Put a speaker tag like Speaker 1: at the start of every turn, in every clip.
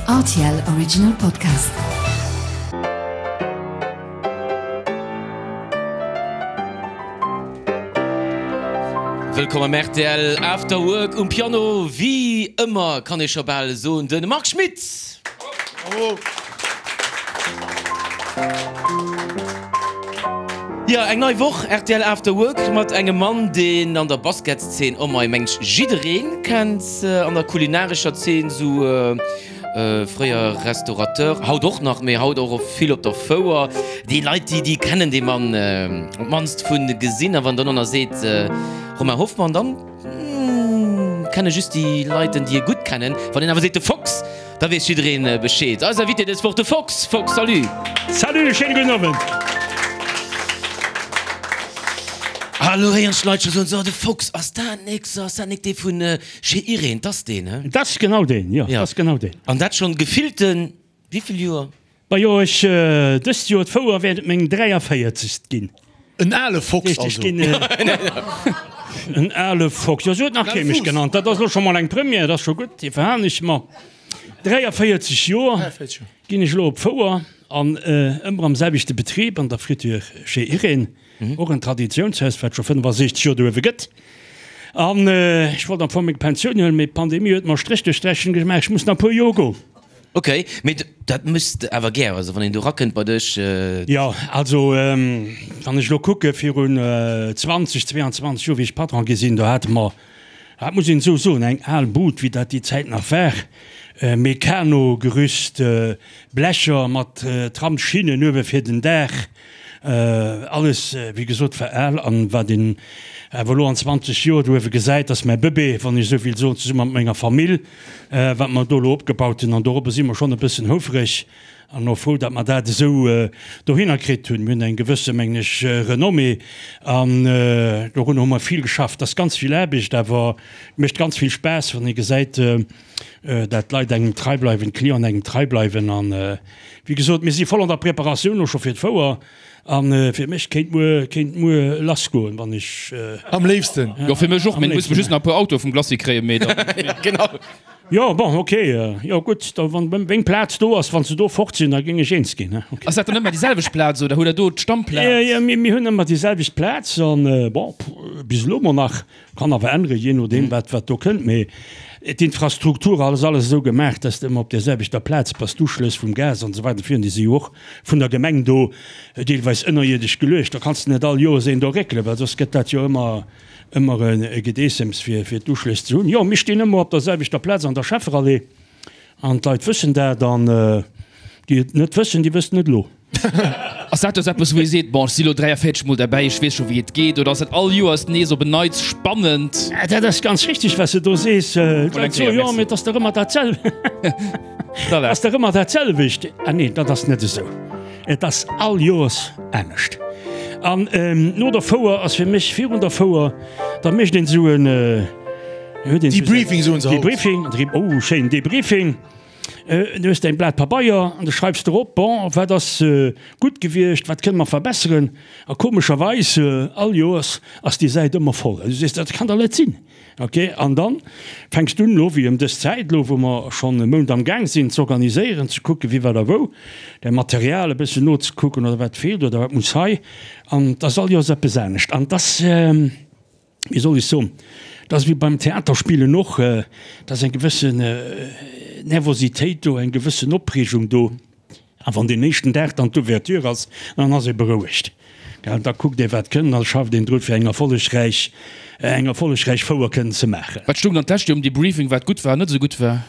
Speaker 1: Rtl Original Podcast.
Speaker 2: Wëllkomm am rtl After Work. Um Piano, wéi ëmmer kann ee scho bal soen, de Marc Schmitt. Jo, eng nei Woch rtl After Work mat engem Mann, deen an der Basketszeen, oh mei, mengt jiddereen kennt, an der kulinarescher Zeen, sou fréier Restaurateur, haut och nach, mee haut och vill op der Fouer. Déi Leit, déi, déi kennen dee Mann op d'mannst vu gesinn. A wann dann och nach seet Romain Hoffmann, dann kenne just déi Leit en, déi e gutt kennen. Wann een awer seet de Fox, Da weess jiddereen Bescheed. Eis Invité dës Woch, de Fox. Fox, salut!
Speaker 3: Salut, schéine gudden Owend!
Speaker 2: Ah, elo héieren ech d'Leit scho soen, So, de Fox, ass dat nik, so, ass dat nik dee vun Chez Irene? 't ass deen, he?
Speaker 3: Dat ass genau deen, jo, dat ass genau deen.
Speaker 2: An dat schonn gefillten wéivill Joer?
Speaker 3: Majo, ech, dëst Joer d'Fouer wäert et meng 43. ginn.
Speaker 4: En ale Fox also.
Speaker 3: En ale Fox, jo, sou huet nach kee mech genannt. Dat ass elo scho mol eng Première, dat ass scho gutt, déi verhalen ech mer. 43 Joer ginn ech elo op d'Fouer an ëmmer am selwechte Betrib, an der Friture Chez Irène, och en Traditiounshaus, wat scho 65 Joer do uewe gëtt. An ech wollt am Fong meng Pensioun huelen, mee d'Pandemie huet mer e Stréch duerch d'Rechnung gemaach, ech muss nach e puer Joer goen.
Speaker 2: Ok, mee dat méchs de awer gär, also wann een do rakënnt bei dech?
Speaker 3: Jo, also wann ech elo kucke virun 20, 22 Joer, wéi ech Patron gi sinn, do hate mer, dat muss een esou soen, eng al Bud, wéi dat déi Zäit nach war, Meccano-Gerüst, Blecher mat Tramsschinnen uewe fir den Daach, Alles, wéi gesot, war al. An wat een awer elo an 20 Joer do uewe gesäit, ass mäi Bëbee, wann ech esou will soen, zesumme mat menger Famill, wat mer do elo opgebaut hunn. An dorobber si mer schonn e bëssen houfreg an och frou, datt mer dat esou dohinner kritt hunn. Mir hunn eng gewësse, mengen ech, Renommée an dorunner hu mer vill geschafft. Et ass ganz vill Aarbecht, awer et mécht ganz vill Spaass, wann ee gesäit, dat d'Leit engem trei bleiwen, d'Clienten engem trei bleiwen. An wéi gesot, mir si voll an der Preparatioun elo scho fir d'Fouer. A fir mech kéint muer, kéint muer lass goen, wann ech.
Speaker 4: Am léifsten.
Speaker 5: Jo, fir mech och, mee muss just nach e puer Autoe vum Glacis kréien, mee dann.
Speaker 2: Genau.
Speaker 3: Jo, bon, ok, jo gutt, da wann meng Plaz do ass, wann se do fort sinn, da géing ech eens ginn,
Speaker 5: ok. Ass dat dann ëmmer déi selwecht Plaz oder hutt der do d'Stammplaz?
Speaker 3: Jo, mir hunn ëmmer déi selwecht Plaz an, bon, bis elo mol nach. Kann awer änneren, jee nodeem wat wat do kënnt. Mee d'Infrastruktur ass alles esou gemaach, dass de ëmmer op där selwechter Plaz bass. D'Uschlëss vum Gas an esou weider virun, déi si jo och vun der Gemeng do deelweis ënnerierdesch geluecht. Da kanns de net all Joers een do réckelen, well soss gëtt dat jo ëmmer ëmmer e Gedeessems fir fir d'Uschlëss ze hunn. Jo, mir stinn ëmmer op der selwechter Plaz an der Schefferallee. An d'Leit wëssen dat, an déi et net wëssen, déi wëssen et elo.
Speaker 5: Ass dat dës eppes, wou ee seet, bon, ech si lo 43 Mol derbäi, ech weess scho wéi et geet, oder ass dat all Joers nees op en Neits spannend?
Speaker 3: Dat ass ganz richteg, wat s de do sees. D'Leit soen, jo, mee et ass dach ëmmer dat ass dach ëmmer dat selwecht. Ah nee, dat ass net esou. Et ass all Joers anescht. An no der Fouer ass fir mech virun der Fouer, da mécht een esou en.
Speaker 4: Debriefing soen se
Speaker 3: haut. Debriefing, oh schéin, Debriefing. Du hues däin Blat Pabeier an du schreifs drop, bon, wat ass gutt gewiescht, wat kënne mer verbesseren. A komescherweis, all Joers ass déi Säit ëmmer voll. Du sees, dat kann dach net sinn. Ok, an dann fänks du un, elo wéi ëm dës Zäit, elo wou mer schonn e Mount am Gaang sinn, z'organiséieren, ze kucken, wie wat a wou, däi Material e bëssen nozekucken oder wat feelt oder wat muss hei. An 't ass all Joers eppes anescht. An 't ass. wéi soll ech soen, et ass wéi beim Theaterspillen och, et ass eng gewëssen Nervositéit do, eng gewëssen Opreegung do. A wann deen éischten Dag dann d'Ouverture ass, dann ass ee berouegt, gell. Da kuckt ee wat kënnt an da schafft een dru fir eng erfollegräich, eng erfollegräich Fouer kënnen ze maachen.
Speaker 5: Wat stoung dann d'lescht Joer um Debriefing, wat gutt war an net esou gutt war?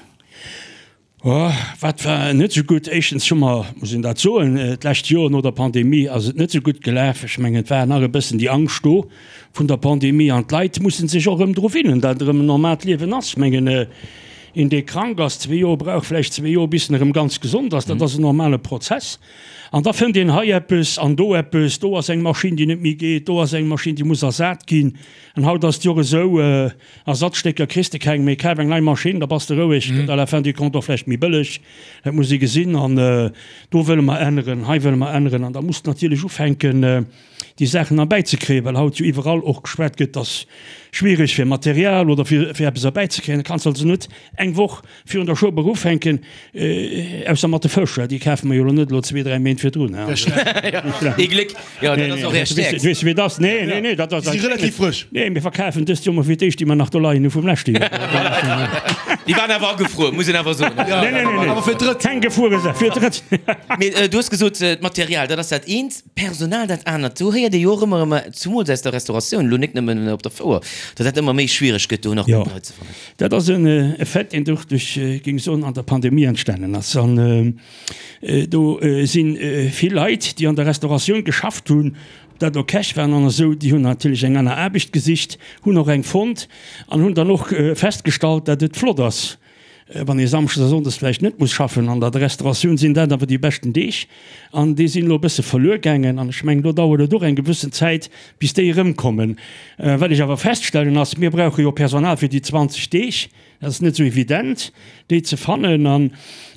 Speaker 3: Oh, wat war net esou gutt? Éischtens hu mer, muss een dat soen, d'lescht Joer no der Pandemie ass et net esou gutt gelaf. Ech mengen, et war nach e bëssen déi Angscht do vun der Pandemie an d'Leit musse sech och erëm dru winnen, datt erëm en normaalt Liewen ass. Ech mengen, een, dee krank ass, zwee Joer brauch vläicht zwee Joer, bis en erëm ganz gesond ass. Dat ass en normale Prozess. An da fënnt een hei eppes an do eppes, do ass eng Maschinn, déi net méi geet, do ass eng Maschinn, déi muss ersat ginn. An haut ass et jo och esou, Ersatzstécker kriss de keng méi, kaf eng nei Maschinn, da bass de roueg, gëtt à la fin du compte och vläicht méi bëlleg, dat muss ee gesinn. An do wëlle mer änneren, hei wëlle mer änneren. An da muss de natierlech ufänken, déi Saachen erbäizekréien, well haut jo iwwerall och geschwat gëtt, dass schwiereg fir Material oder fir eppes erbäizekréien. Da kanns de also net eng Woch virun der Schueber ufänken, ausser mat de Fësch, déi kafe mer jo elo net elo zwee, dräi Méint virdrun.
Speaker 2: Ee Gléck, jo, dat ass och Är Stäerkt.
Speaker 3: Weess de wéi et ass? Nee, nee, nee, dat ass.
Speaker 4: Déi si relativ frësch.
Speaker 3: Nee, mir verkafen dëst Joer mol fir d'éischt déi mer nach do leien hu vum leschte Joer.
Speaker 2: Déi waren awer agefruer, muss een awer soen.
Speaker 3: Nee, nee, nee,
Speaker 4: Awer fir d'Drëtt.
Speaker 3: Keng gefruere Saach, fir d'Drëtt.
Speaker 2: Mee du hues gesot, d'Material, dat ass dat eent. D'Personal dat anert. Do héiert ee jo och ëmmer erëm, zumools aus der Restauratioun, elo net nëmmen op der Fouer, datt dat ëmmer méi schwiereg gëtt, do nach gutt Leit ze fannen.
Speaker 3: Jo, dat ass en Effet, deen och duerch, géing ech soen, an der Pandemie entstanen ass. An do si vill Leit, déi an der Restauratioun geschafft hunn, ob dat elo Käch waren an esou, déi hunn natierlech eng aner Aarbecht gesicht, hunn och eng fonnt an hunn dann och festgestallt, datt et flott ass, Wann ee Samschdes a Sonndes vläicht net muss schaffen, an der Restauratioun sinn dat awer déi beschten Deeg, an déi sinn elo e bësse verluer gaangen. An ech mengen, do dauert et och eng gewëssen Zäit, bis déi erëmkommen. Wat ech awer feststellen ass, mir brauche jo Personal fir déi 20 Deeg. Dat ass net esou evident, déi ze fannen. An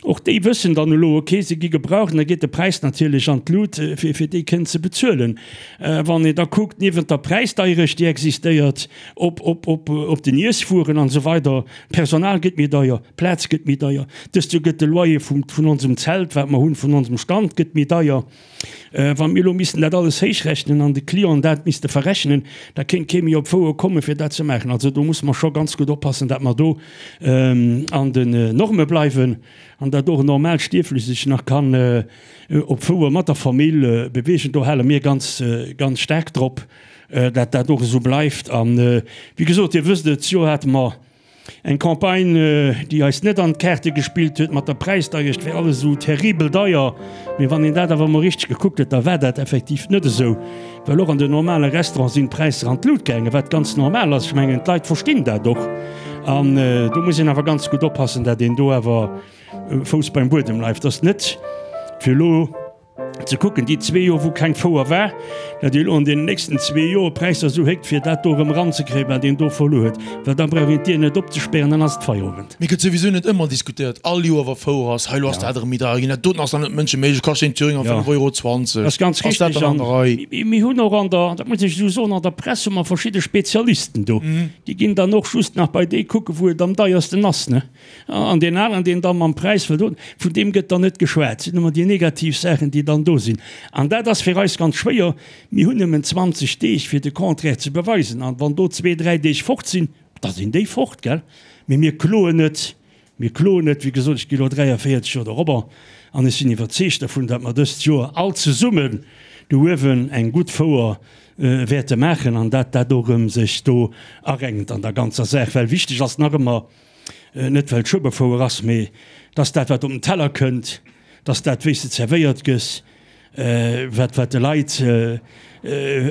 Speaker 3: och déi wëssen dann elo, okay, se gi gebraucht, an da geet de Präis natierlech an d'Lut, fir fir déi kënnen ze bezuelen. Wann een da kuckt, niewent der Präisdeierecht, déi existéiert, op op op op den Iesswueren an esou weider, Personal gëtt méi deier, Plaz gëtt méi deier. Dëst Joer gëtt de Loyer vum, vun onsem Zelt, wat mer hunn, vun onsem Stand gëtt méi deier. Wa mir elo missten dat alles héichrechnen an de Clienten dat misste verrechnen, da kéint kee méi op d'Fouer kommen, fir dat ze maachen. Also do musse mer scho ganz gutt oppassen, dat mer do an den Norme bleiwen an dat och en normaalt Stierflech sech nach kann op d'Fouer mat der Famill beweegen. Do hale mir ganz, ganz staark drop. dat dat och esou bleift. An wéi gesot, Dir wësst et, d'Joer hate mer eng Campagne, déi eis net an d'Kaarte gespillt huet mat der Präisdeierecht, wär alles esou terribel deier. Mee wann een dat awer emol richteg gekuckt huet, da war dat effektiv net esou, well och an den normale Restaurante sinn d'Präisser an d'Lut gaangen, wat ganz normal ass. Ech mengen, d'Leit verstinn dat och. An do muss een awer ganz gutt oppassen, dat een do awer Fouss beim Buedem bleift. Dass net fir elo. Ze kucken, déi zwee Joer wou keng Fouer war, datt ee elo an deenen nächsten zwee Joer d'Präisser esou héckt, fir dat do erëm eranzekréien, wat een do verluer huet, well da brauch een d'Dier net opzespären, dann ass et Feierowend.
Speaker 4: Mee gëtt souwisou net ëmmer diskutéiert, all Joer wa Fouer ass, hei elo ass dat erëm méi deier ginn, dat doten ass nach net mënscheméiglech, kascht een Thüringer 5 Euro 20,
Speaker 3: Dat ass ganz
Speaker 4: ass dat
Speaker 3: richtig.
Speaker 4: dann an der Rei?
Speaker 3: An mir hunn och an der, dat muss ech esou soen, an der Press hu mer verschidde Spezialisten do, déi ginn dann och just nach bei déi kucken, wou et am deiersten ass, ne? An deen aneren, deen da mam Präis wëllt un, vun deem gëtt dann net geschwat. Et sinn ëmmer déi negativ Saachen, déi dann do sinn. An dat ass fir eis ganz schwéier. Mir hunn nëmmen 20 Deeg, fir de Contraire ze beweisen. An wann do zwee, dräi Deeg fort sinn, da sinn déi fort, gell? Mee mir kloen net. Mir kloen net. Wéi gesot, ech gi elo 43 Joer dorobber an ech sinn iwwerzeegt dervun, datt mer dëst Joer all zesummen do uewen eng gutt Fouer wäerte maachen an dat dat och erëm sech do arenkt an der ganzer Saach. Well wichteg ass nach ëmmer, net well et Schueberfouer ass, mee dass dat wat op den Teller kënnt, dass dat wéi s de zerwéiert gëss, wat wat de Leit,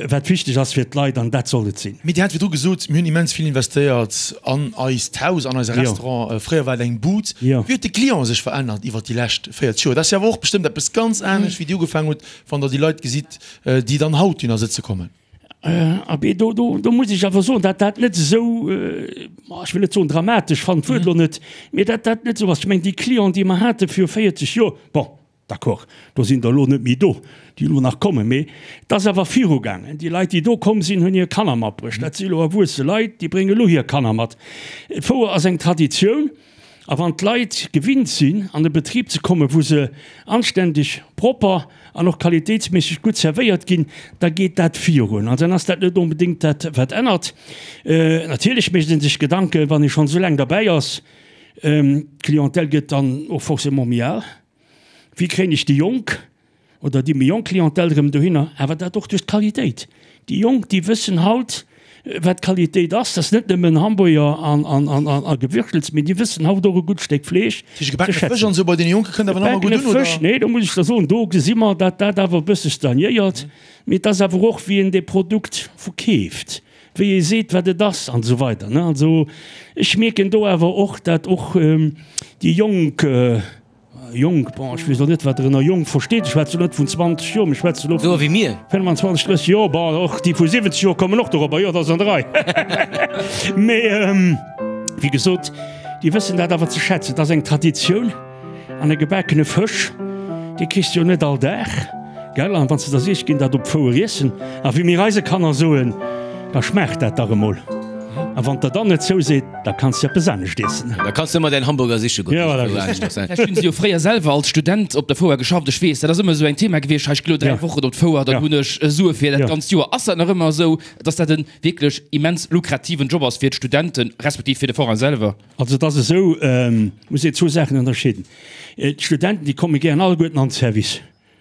Speaker 3: wat wichteg ass fir d'Leit an dat soll et sinn.
Speaker 4: Mee Dir hat virdru gesot, mir hunn immens vill investéiert an eist Haus, an eise Restaurant. Fréier war et eng Bud. Wéi huet de Client sech verännert iwwert déi lescht 40 Joer? Dat ass jo awer och bestëmmt eppes ganz anescht, wéi Dir ugefaangen hutt, wann Der déi Leit gesitt, déi dann haut dohinner sëtze kommen.
Speaker 3: Abee, do, do, do muss ech awer soen, dat dat net esou, ech wëll net soen dramatesch, fannen d'Wuert elo net, mee dat dat net esou ass. Ech mengen, déi Clienten, déi mer hate viru 40 Joer, bon, d'accord, do sinn der elo net méi do, déi elo nach kommen, mee et ass awer virugaangen. Déi Leit, déi do komm sinn, hunn hir Kanner matbruecht. Dat si elo erwuesse Leit, déi brénge elo hir Kanner mat. D'Fouer ass eng Traditioun. A wann d'Leit gewinnt sinn, an e Betrib ze kommen, wou se anständeg, propper an och qualitéitsméisseg gutt zerwéiert ginn, da geet dat virun. An dann ass dat net onbedéngt dat, wat ännert. Natierlech mécht ee sech Gedanken, wann ee schonn esou laang derbäi ass. D'Clientèle gëtt dann och forcément méi al. Wéi kréien ech déi Jonk oder déi méi jonk Clientèle erëm dohinner? Awer dat och duerch d'Qualitéit. Déi Jonk, déi wëssen haut, wat Qualitéit ass. Dat ass net nëmmen Hamburger a Gewürfels, mee déi wëssen haut och e gutt Stéck Fleesch
Speaker 4: ze schätzen. Gebackene Fësch an esou bei deene Jonke kënnt awer nach ëmmer gutt un, oder?
Speaker 3: Gebackene Fësch, nee, do muss ech der soen, do gesi mer, datt dat awer e bësse stagnéiert. Mee et ass awer och, wéi een dee Produkt verkeeft, wéi ee seet, wat et ass an esou weider. Also ech mierken do awer och, datt och déi Jonk, Jonk, bon, ech weess elo net, wat Der ënner jonk versteet. Ech schwätze elo net vun 20 Joer, mee ech schwätze elo
Speaker 2: Sou wéi mir.
Speaker 3: 25, 30 Joer. Bon, och déi vu 70 Joer kommen och dorobber, jo, dat ass an der Rei. Mee wéi gesot, déi wëssen dat awer ze schätzen. Dat ass eng Traditioun. An e gebakene Fësch, dee kriss de jo net all Dag. Gell? An wann s de der sees, ech ginn dat op d'Fouer iessen, a wéi mir eise Kanner soen, da schmaacht dat dach emol. A wann der dann net zouseet, da kanns de eppes anescht iessen.
Speaker 2: Da kanns de ëmmer däin Hamburger siche goen.
Speaker 3: Ja, voilà, just.
Speaker 5: Vläicht hunn se jo fréier selwer als Student op der Fouer geschafft. Ech weess, dat ass ëmmer esou eng Thema gewiescht, hei, ech gi lo 3 Wochen op d'Fouer, dann hunn ech Sue fir dat ganzt Joer. Ass dat nach ëmmer esou, dass dat e wierklech immens lukrativen Job ass fir d'Studenten, respektiv fir de Forain selwer?
Speaker 3: Also et ass esou, muss een zwou Saachen ënnerscheeden. D'Studenten, déi komme gären alleguerten an de Service,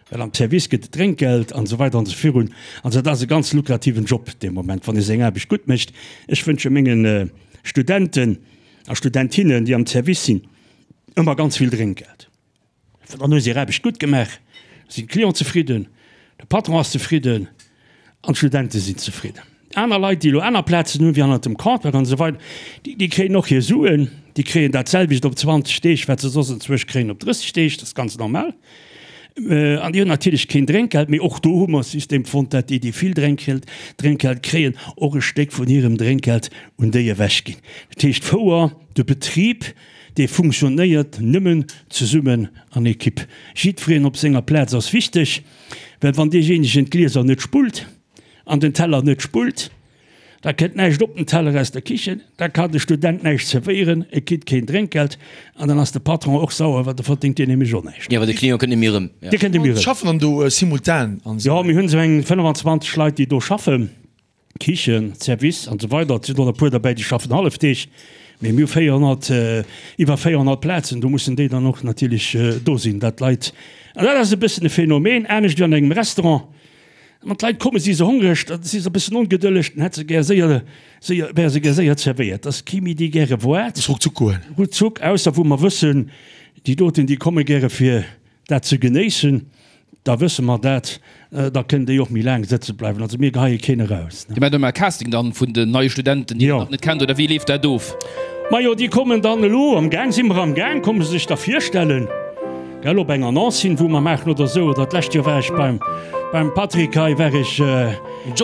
Speaker 3: well am Service gëtt et Drénkgeld an esou weider an esou virun. Also dat ass e ganz lukrativen Job dee Moment, wann ee seng Aarbecht gutt mécht. Ech wënsche menge Studenten a Studentinnen, déi am Service sinn, ëmmer ganz vill Drénkgeld. Dann hu se hir Aarbecht gutt gemaach, da sinn d'Clienten zefridden, de Patron ass zefridden an d'Studente sinn zefridden. Aner Leit, déi elo aner Plazen hunn, wéi hannert dem Comptoir an esou weider, déi kréien och hir Suen, déi kréien dat selwecht op 20 Deeg, wat se soss enzwousch kréien op 30 Deeg, dat ass ganz normal. An déi hunn natierlech keen Drénkgeld, mee och do hu mer e System fonnt, dat déi, déi vill Drénkgeld, Drénkgeld kréien, och e Stéck vun hirem Drénkgeld un déi ewechginn. Dat heescht, d'Fouer, de Betrib, Dee funktionéiert nëmmen zesummen an Ekipp. Jiddwereen op senger Plaz ass wichteg, well wann deejéinegen d'Glieser net spullt an den Teller net spullt, da kënnt näischt op den Teller aus der Kichen, da kann de Student näischt zerwéieren, e kritt keen Drénkgeld an dann ass de Patron och sauer, well da verdéngt deen nämlech och näischt.
Speaker 2: Jo, well de Client kënnt net méi erëm.
Speaker 3: Dee kënnt net méi erëm.
Speaker 4: Schaffen dann do simultan
Speaker 3: an esou? Jo, mir hunn esou eng 25 Leit, déi do schaffen. Kichen, Service an esou weider. Et sinn och e puer derbäi, déi schaffen Hallefdeeg, mee mir hu 400, iwwer 400 Plazen, do mussen déi dann och natierlech do sinn, dat d'Leit, an dat ass e bëssen e Phänomen, anescht wéi an engem Restaurant, wann d'Leit kommen, si se hongreg, da si se e bëssen ongedëlleg, dann hätt se gär séier, séier, wäre se gär séier zerwéiert. Et ass kee méi, dee gäre waart.
Speaker 4: Muss ruckzuck goen.
Speaker 3: Ruckzuck, ausser wou mer wëssen, déi doten, déi komme gäre fir dat ze genéissen, da wësse mer dat, da kënnen déi och méi laang sëtze bleiwen. Also mir geheie keen eraus.
Speaker 5: Dir maacht ëmmer e Casting dann vun den neie Studenten, déi Der nach net kennt, oder wéi leeft dat of?
Speaker 3: Majo, déi kommen dann elo, am Gaang si mer am Gaang, komme se sech da virstellen, gell, op eng Annonce hin, wou mer maachen oder esou. Oder d'lescht Joer war ech beim, beim Patrick hei, war ech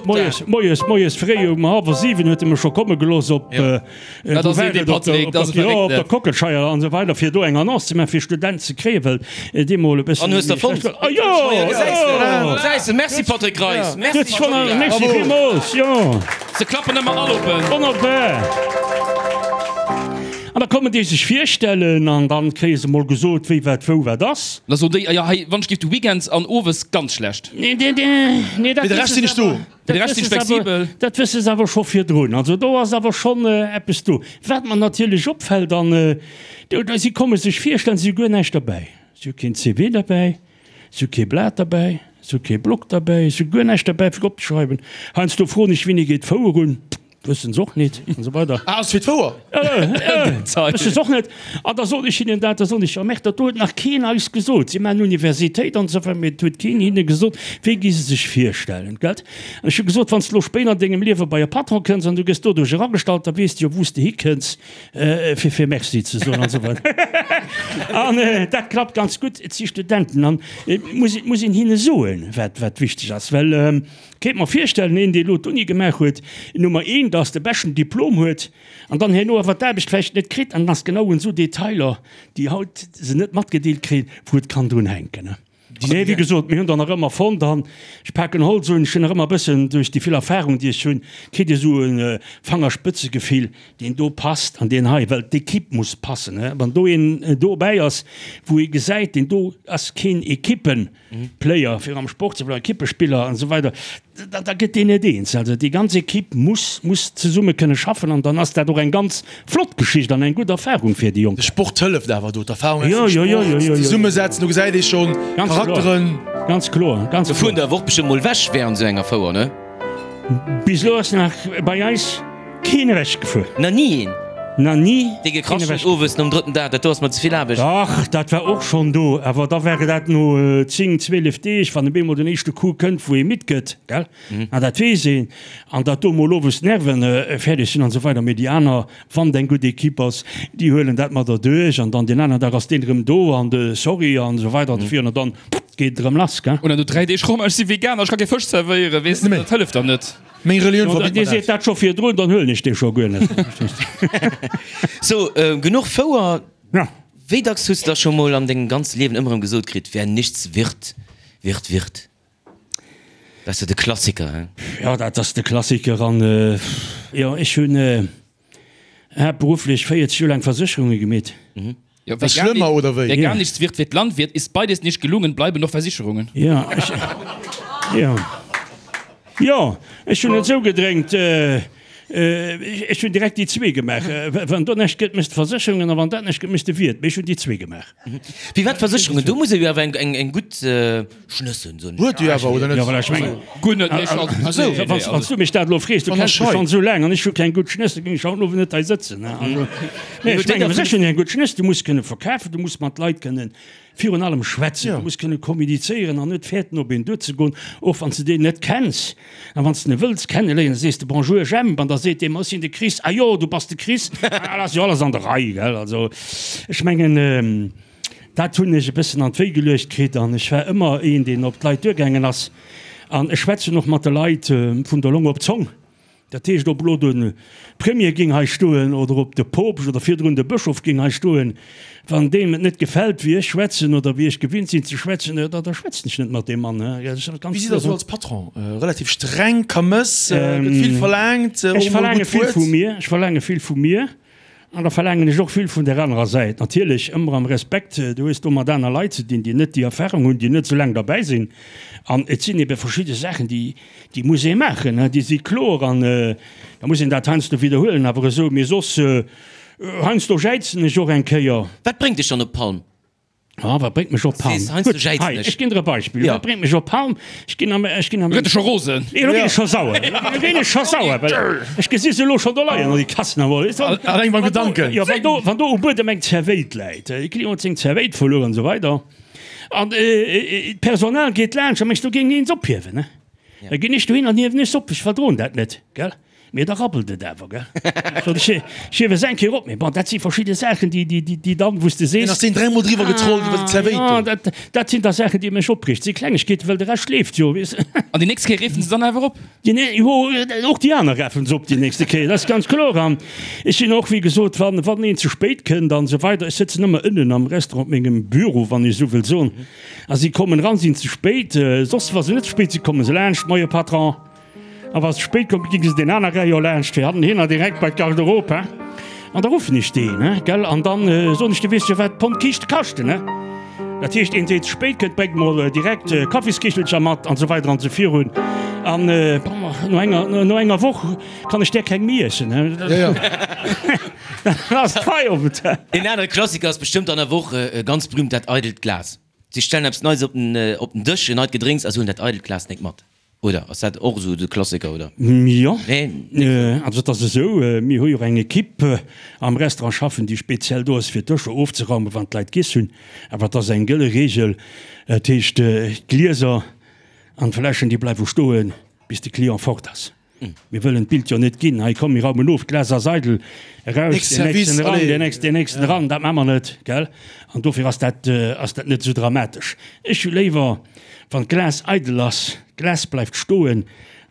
Speaker 3: moies, moies, moies fréi um hallwer 7 huet e mech scho komme gelooss op,
Speaker 5: Dat ass een, dee Patrick, dat ass e
Speaker 3: Verréckten. Jo, op der Kockelscheier an esou weider, fir do eng Annonce ze maachen, fir Student ze kréien, well dee mol e bëssen.
Speaker 2: An hues der fonnt?
Speaker 3: Ah jo!
Speaker 2: Jo! Gesäis de, merci Patrick Reis, merci.
Speaker 3: Merci villmools, jo.
Speaker 5: Se klappen ëmmer all op en.
Speaker 3: Wonnerbar. An da kommen déi sech virstellen an dann kréie se mol gesot, wéi wat wou wat ass.
Speaker 5: Da soen déi, ah jo, hei, wann ech géif de Weekends an owes ganz schlecht.
Speaker 3: Nee, nee, nee, dat
Speaker 4: Fir de Rescht sinn ech do.
Speaker 5: De Rescht sinn flexibel.
Speaker 3: Dat wësse se awer scho virdrun. Also do ass awer schonn eppes do. Wat mer natierlech opfält, an do, si komme sech virstellen, si hu guer näischt derbäi. Si hu keen CV derbäi, si hu kee Blat derbäi, si hu kee Block derbäi, si hu guer näischt derbäi fir opzeschreiwen. Heiansdo froen ech, Wéini geet d'Fouer un? Wëssen se och nit an esou weider.
Speaker 4: Ah, ass fir d'Fouer?
Speaker 3: Wësse se och net. An da soen ech hinnen dat, da soen ech, jo, merkt, dat do huet nach keen eis gesot. Si maachen Universitéit an esou weider, mee et huet keen hinne gesot, wéi gi se sech virstellen, gelt? An ech hu gesot, wann s de elo spéider an dengem Liewe bei e Patron kënns an du gëss doduerch eragestallt, da weess de jo, wou s de hikënns, fir fir Merci ze soen an esou weider. An dat klappt ganz gutt. Et si Studenten an et muss, et muss een hinne soen, wat, wat wichteg ass, well, Kéint mer virstellen, een dee lo d'Uni gemaach huet, Nummer een, dass de beschten Diplom huet an dann herno awer d'Aarbecht vläicht net kritt an dann ass genau un esou Detailer, déi haut se net matgedeelt kréien, wou et kann drun hänken. Mee wéi gesot, mir hunn der nach ëmmer fonnt an ech paken Holz un, ech hunn nach ëmmer e bëssen duerch déi vill Erfahrung, déi ech hunn, kritt ee sou e Fangerspëtzegefill, deen do passt an deen hei, well d'Equipe muss passen. Wann do een dobäi ass, wou ee gesäit, deen do ass keen Equippen, Player, fir am Sport ze bleiwen, Ekippespiller an esou weider, da, da gëtt deen net eens. Also déi ganz Ekipp muss, muss zesumme kënne schaffen an dann ass dat och eng ganz flott Geschicht an eng gutt Erfahrung fir déi Jonk.
Speaker 4: De Sport hëlleft awer do, d'Erfahrung aus dem Sport, zesummesetzen, do gesäit ee schonn Charakteren.
Speaker 3: Ganz kloer, ganz kloer.
Speaker 2: Do fueren der awer och bestëmmt mol ewech während esou enger Fouer, ne?
Speaker 3: Bis elo ass nach bei eis keen ewech gefuer.
Speaker 2: Na ni een?
Speaker 3: Na ni
Speaker 2: Dee gekracht huet owes nom drëtten Dag, dat do ass mer ze vill Aarbecht.
Speaker 3: Dach, dat war och schonn do, awer da war dat no 10, 12 Deeg, wann op eemol den éischte Coup kënnt, wou ee midd gëtt, gell, an dat weess een, an datt do mol owes d'Nerven fäerdeg sinn an esou weider. Mee déi aner, wann et eng gutt Ekipp ass, déi huelen dat mat erduerch an dann deen aneren Dag ass deen erëm do an de Sorry an esou weider an esou virun an dann geet et erëm lass, gell.
Speaker 5: Oder no 3 Deeg, Romain, ech si Veganer, ech ka kee Fësch zerwéieren, weess de, dat hëlleft dann net.
Speaker 4: Meng Relioun verbitt
Speaker 3: mer dat. Dir seet dat scho virdrun, dann huelen ech dee scho guer net.
Speaker 2: So, genuch Fouer.
Speaker 3: Ja.
Speaker 2: Wéi dacks hues de da scho mol an dengem ganze Liewen ëmmer erëm gesot kritt, Wer nichts wird, wird Wirt? Dat ass jo de Klassiker, hein?
Speaker 3: Jo, dat ass de Klassiker. An jo, ech hunn haaptberufflech 40 Joer laang Versécherunge gemeet.
Speaker 5: Jo, wer gar
Speaker 4: Schlëmmer oder wéi?
Speaker 5: Wer gar nichts wird, wird Landwirt, ist beides nicht gelungen, bleiben noch Versicherungen.
Speaker 3: Jo, ech, jo, jo, ech hunn et esou gedrénkt, ech hunn direkt déi zwee gemaach. Wann do näischt gëtt, méchs de Versécherungen, a wann dat näischt gëtt, méchs de Wiert. Mee ech hunn déi zwee gemaach.
Speaker 2: Firwat Versécherungen? Do muss ee jo awer eng gutt Schnëss hunn, soen ech.
Speaker 4: Huet jo awer, oder net?
Speaker 3: Jo, voilà, ech mengen,
Speaker 5: Guer net, nee, ech also,
Speaker 3: also,
Speaker 5: nee, nee,
Speaker 3: wann
Speaker 5: also.
Speaker 3: du mech dat elo frees, du
Speaker 4: Wann
Speaker 3: kenns
Speaker 4: ech
Speaker 3: mech
Speaker 4: hei.
Speaker 3: schonn esou laang an ech hu keng gutt Schnëss, da géing ech haut den Owend net hei sëtzen, ne? Also, nee, ech mengen, Versécherungen eng gutt Schnëss, du muss kënne verkafen, du muss mat Leit kënnen virun allem schwätzen, du muss kënne kommunizéieren an net fäerten, op een duerzegoen, och wann s de deen net kenns. An wann s de en wëlls kenneléieren, da sees de Bonjour Jemp an da seet dee, ma ech sinn de Chris, ah jo, du bass de Chris, ah, dat ass jo alles an der Rei, gell? Also, ech mengen, Dat hunn ech e bëssen an d'Wéi geluecht kritt an ech war ëmmer een, deen op d'Leit duergaangen ass. An ech schwätzen och mat de Leit vun der Long op d'Zong. Dat heescht, ob elo de Premier géing hei stoen oder ob de Poopst oder virdrun de Bëschof géing hei stoen, wann deem et net gefält, wéi ech schwätzen oder wéi ech gewinnt sinn ze schwätzen, da da schwätzen ech net mat deem Mann.
Speaker 4: Wéi sidd Der esou als Patron? Relativ streng, Kamëss, gëtt vill verlaangt, och
Speaker 3: Ech
Speaker 4: emol e
Speaker 3: verlaange
Speaker 4: gutt
Speaker 3: vill
Speaker 4: Wuert?
Speaker 3: vu mir, ech verlaange vill vu mir. An da verlaangen ech och vill vun där anerer Säit. Natierlech ëmmer am Respekt, du hues do mat aner Leit ze dinn, déi net déi Erfahrung hunn, déi net esou laang derbäi sinn. An et sinn ebe verschidde Saachen, déi, déi muss ee maachen, déi si kloer. An da muss een dat heiansdo widderhuelen. Awer esou, mee soss, heiansdo jäizen ech och eng Kéier.
Speaker 2: Wat bréngt dech dann op d'Palm?
Speaker 3: Ah, wat bréngt mech op Palm? Gutt, hei, ech ginn der e Beispill. Wat bréngt mech op Palm? Ech ginn am, ech ginn am.
Speaker 5: Lo gëtt e scho rosen.
Speaker 3: Nee, lo ginn ech scho sauer. Lo ginn ech scho sauer, well ech gesi se elo schonn do leien, an déi Kassen am.
Speaker 4: Alleng beim Gedanken.
Speaker 3: Jo, wann do, wann do um Buedem eng Zerwéit läit, e Client huet seng Zerwéit verluer an esou weider, an d'Personal geet laanscht, da mengs du, do géing een se ophiewen, ne? Da ginn ech dohin an hiewen ech se op. Ech verdroen dat net, gell? Mee da rabbelt et awer, gell? Sot ech, ech hiewe se eng Kéier op. Mee bon, dat si verschidde Saachen, déi, déi, déi, déi dann, wou s de sees.
Speaker 4: Deen ass deen dräimol driwwer getrollt iwwer déi Zerwéit do.
Speaker 3: Ah, dat, dat sinn da Saachen, déi mech opreegt. Si Klengegkeeten, well de Rescht leeft jo, weess de.
Speaker 5: An déi nächst Kéier reefen se dann awer op?
Speaker 3: Déi nä, jo, och déi aner rafen se op déi nächste Kéier, dat ass ganz kloer. An ech sinn och, wéi gesot, wann, wann een ze spéit kënnt an esou weider, ech sëtzen ëmmer ënnen am Restaurant op mengem Büro, wann ech esou wëll soen, a si kommen eran, sinn ze spéit, soss, wa se net ze spéit sinn, komme se laanscht, Moie Patron. A wa se spéit kommt, gi se deen aner Rayon laanscht, fir hannen direkt bei d'Garderobe, hein. An da ruffen ech deen, hein, gell, an dann soen ech, du weess jo, wat d'Pond Kiischte kaschten, hein. Dat heescht, een, deen ze spéit kënnt, bréngt mol direkt Kaffiskichelcher mat an esou weider an esou virun. An, bon, no enger, no enger Woch kann ech där keng méi iessen, hein. Dann ass Feierowend, hein.
Speaker 2: Een anere Klassiker ass bestëmmt an der Woch ganz berühmt, dat eidelt Glas. Si stellen eppes Neies op den, op den Dësch, en neit Gedrénks a se huelen dat eidelt Glas nik mat. Oder ass dat och esou de Klassiker, oder?
Speaker 3: Jo, also et ass esou, mir hu jo och eng Ekipp am Restaurant schaffen, déi speziell do ass fir d'Dëscher ofzeraumen, wann d'Leit giess hunn. Awer et ass eng gëlle Reegel, dat heescht d'Glieser an d'Fläschen, déi bleiwe stoen, bis de Client fort ass. Mir wëllen d'Bild jo net ginn, hei komm mir raumen of, d'Glas ass eidel, eraus, deen nächsten eran, deen nächsten, deen nächsten eran, dat maache mer net, gell? An dofir ass dat, ass dat net esou dramatesch. Ech hu léiwer, Wann d'Glas eidel ass, d'Glas bleift stoen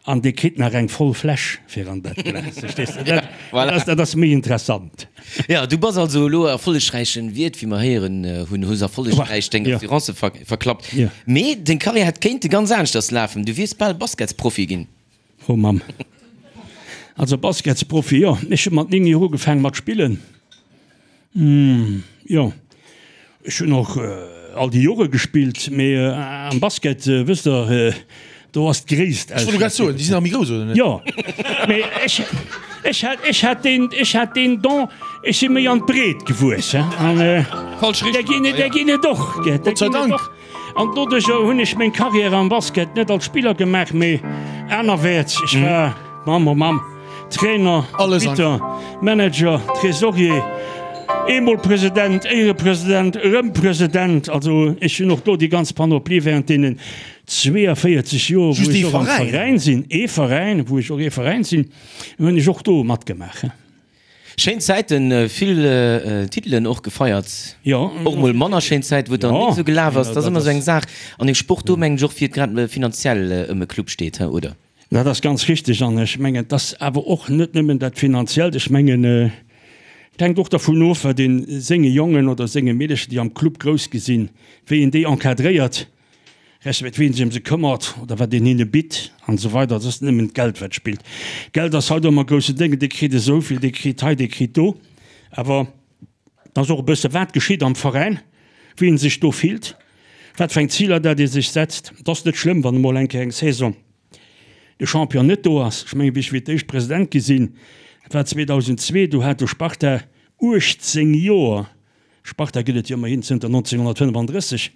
Speaker 3: an dee kritt nach eng voll Fläsch fir an dat Glas. Verstees de? Dat,
Speaker 2: Voilà.
Speaker 3: dat ass méi interessant.
Speaker 2: Ja, du bass also elo erfollegräichen Wiert, wéi mer héieren hunn, hues erfollegräich deng
Speaker 3: Ja.
Speaker 2: Assurance ver verklappt.
Speaker 3: Ja.
Speaker 2: Mee deng Karriär hätt kéinte ganz aneschters lafen, du wiers bal Basketsprofi ginn.
Speaker 3: Oh Mamm. Also Basketsprofi, jo. Ech hu mat 9 Joer ugefaangen mat spillen. Jo, ech hunn och all déi Jore gespillt, mee am Basket, wësst Der, do ass d'Gréisst
Speaker 4: Ech wollt grad soen, déi sinn nach méi grouss, oder net?
Speaker 3: Jo, mee ech, ech hat, ech hat deen, ech hat deen Don, ech si méi an d'Breet gewuess, hein, an
Speaker 5: Falsch
Speaker 3: där
Speaker 5: Richtung,
Speaker 3: ginn et, där ginn et och, gell, där
Speaker 4: Gott sei
Speaker 3: ginn et
Speaker 4: Dank.
Speaker 3: och. An doduercher hunn ech meng Karriär am Basket net als Spiller gemaach, mee anerwäerts. Ech war, Mamm, oh Mamm, Trainer, Arbitter, Manager, Tresorier, eemol President, Éierepresident, erëm President. Also ech hunn och do déi ganz Panoplie während deenen 42 Joer, wou ech och am Veräin sinn, ee Veräin, wou ech och ee Veräin sinn, hunn ech och do matgemaach.
Speaker 2: Schéin Zäiten, vill Titelen och gefeiert.
Speaker 3: Jo.
Speaker 2: Och mol manner schéin Zäit, wou et dann net esou gelaf ass. Dat ass ëmmer esou eng Saach an dem Sport do, mengen ech, och wéi et grad finanziell ëm e Club steet, he, oder?
Speaker 3: Dat ass ganz richteg an ech mengen, et ass awer och net nëmmen dat Finanziellt. Ech mengen, et hänkt och dervun of, wat ee senge Jongen oder senge Meedercher, déi am Club grouss gi sinn, wéi een déi encadréiert. Respekt wien sech ëm se këmmert oder wat een hinne bitt an esou weider. Et ass net nëmmen d'Geld wat spillt. Geld ass haut ëmmer e grousse Déng, dee kritt esou vill, dee kritt hei, dee kritt do. Awer et ass och e bësse wat geschitt am Veräin, wéi een sech do fillt, wat fir eng Ziler dat ee sech setzt. Et ass net schlëmm wann emol eng Kéier eng Saison de Champion net do ass. Ech mengen wéi ech fir d'éischt President gi sinn, dat war 2002, do hat de Sparta 18 Joer Sparta gëtt et jo ëmmerhin zënter 1935,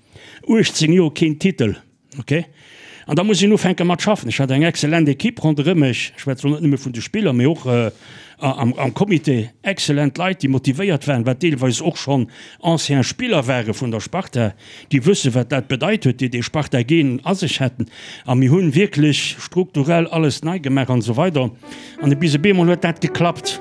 Speaker 3: 18 Joer keen Titel, ok. An da muss een ufänke mat schaffen. Ech hat eng excellent Ekipp ronderëm mech, ech schwätze lo net nëmme vun de Spiller, mee och am Comité, excellent Leit, déi motivéiert waren, wat deelweis och schonn ancien Spiller ware vun der Sparta, déi wësse wat dat bedeit huet, déi dee Sparta-Gen a sech hätten. A mir hunn wierklech strukturell alles nei gemaach an esou weider. An bis op eemol huet dat geklappt.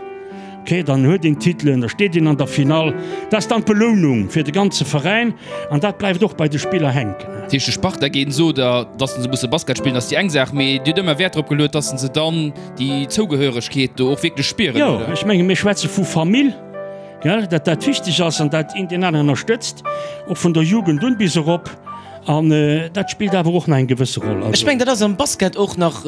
Speaker 3: Ok, dann huet een Titelen, da steet een an der Finall. Dat ass dann d'Belounung fir de ganze Veräin an dat bleift och bei de Spiller hänken.
Speaker 5: Dat heescht, de Sparta géint Soder, datt se musse Basket spillen, ass déi eng Saach, mee Dir hutt ëmmer Wäert drop geluet, datt se dann déi Zougehöregkeet do och wierklech spieren,
Speaker 3: Jo, oder? ech menge mir schwätze vu Famill, gell, datt dat wichteg ass an dat een deen aneren ënnerstëtzt, och vun der Jugend un bis erop. An dat spillt awer och nach eng gewësse Roll.
Speaker 2: Ech mengen, dat ass am Basket och nach.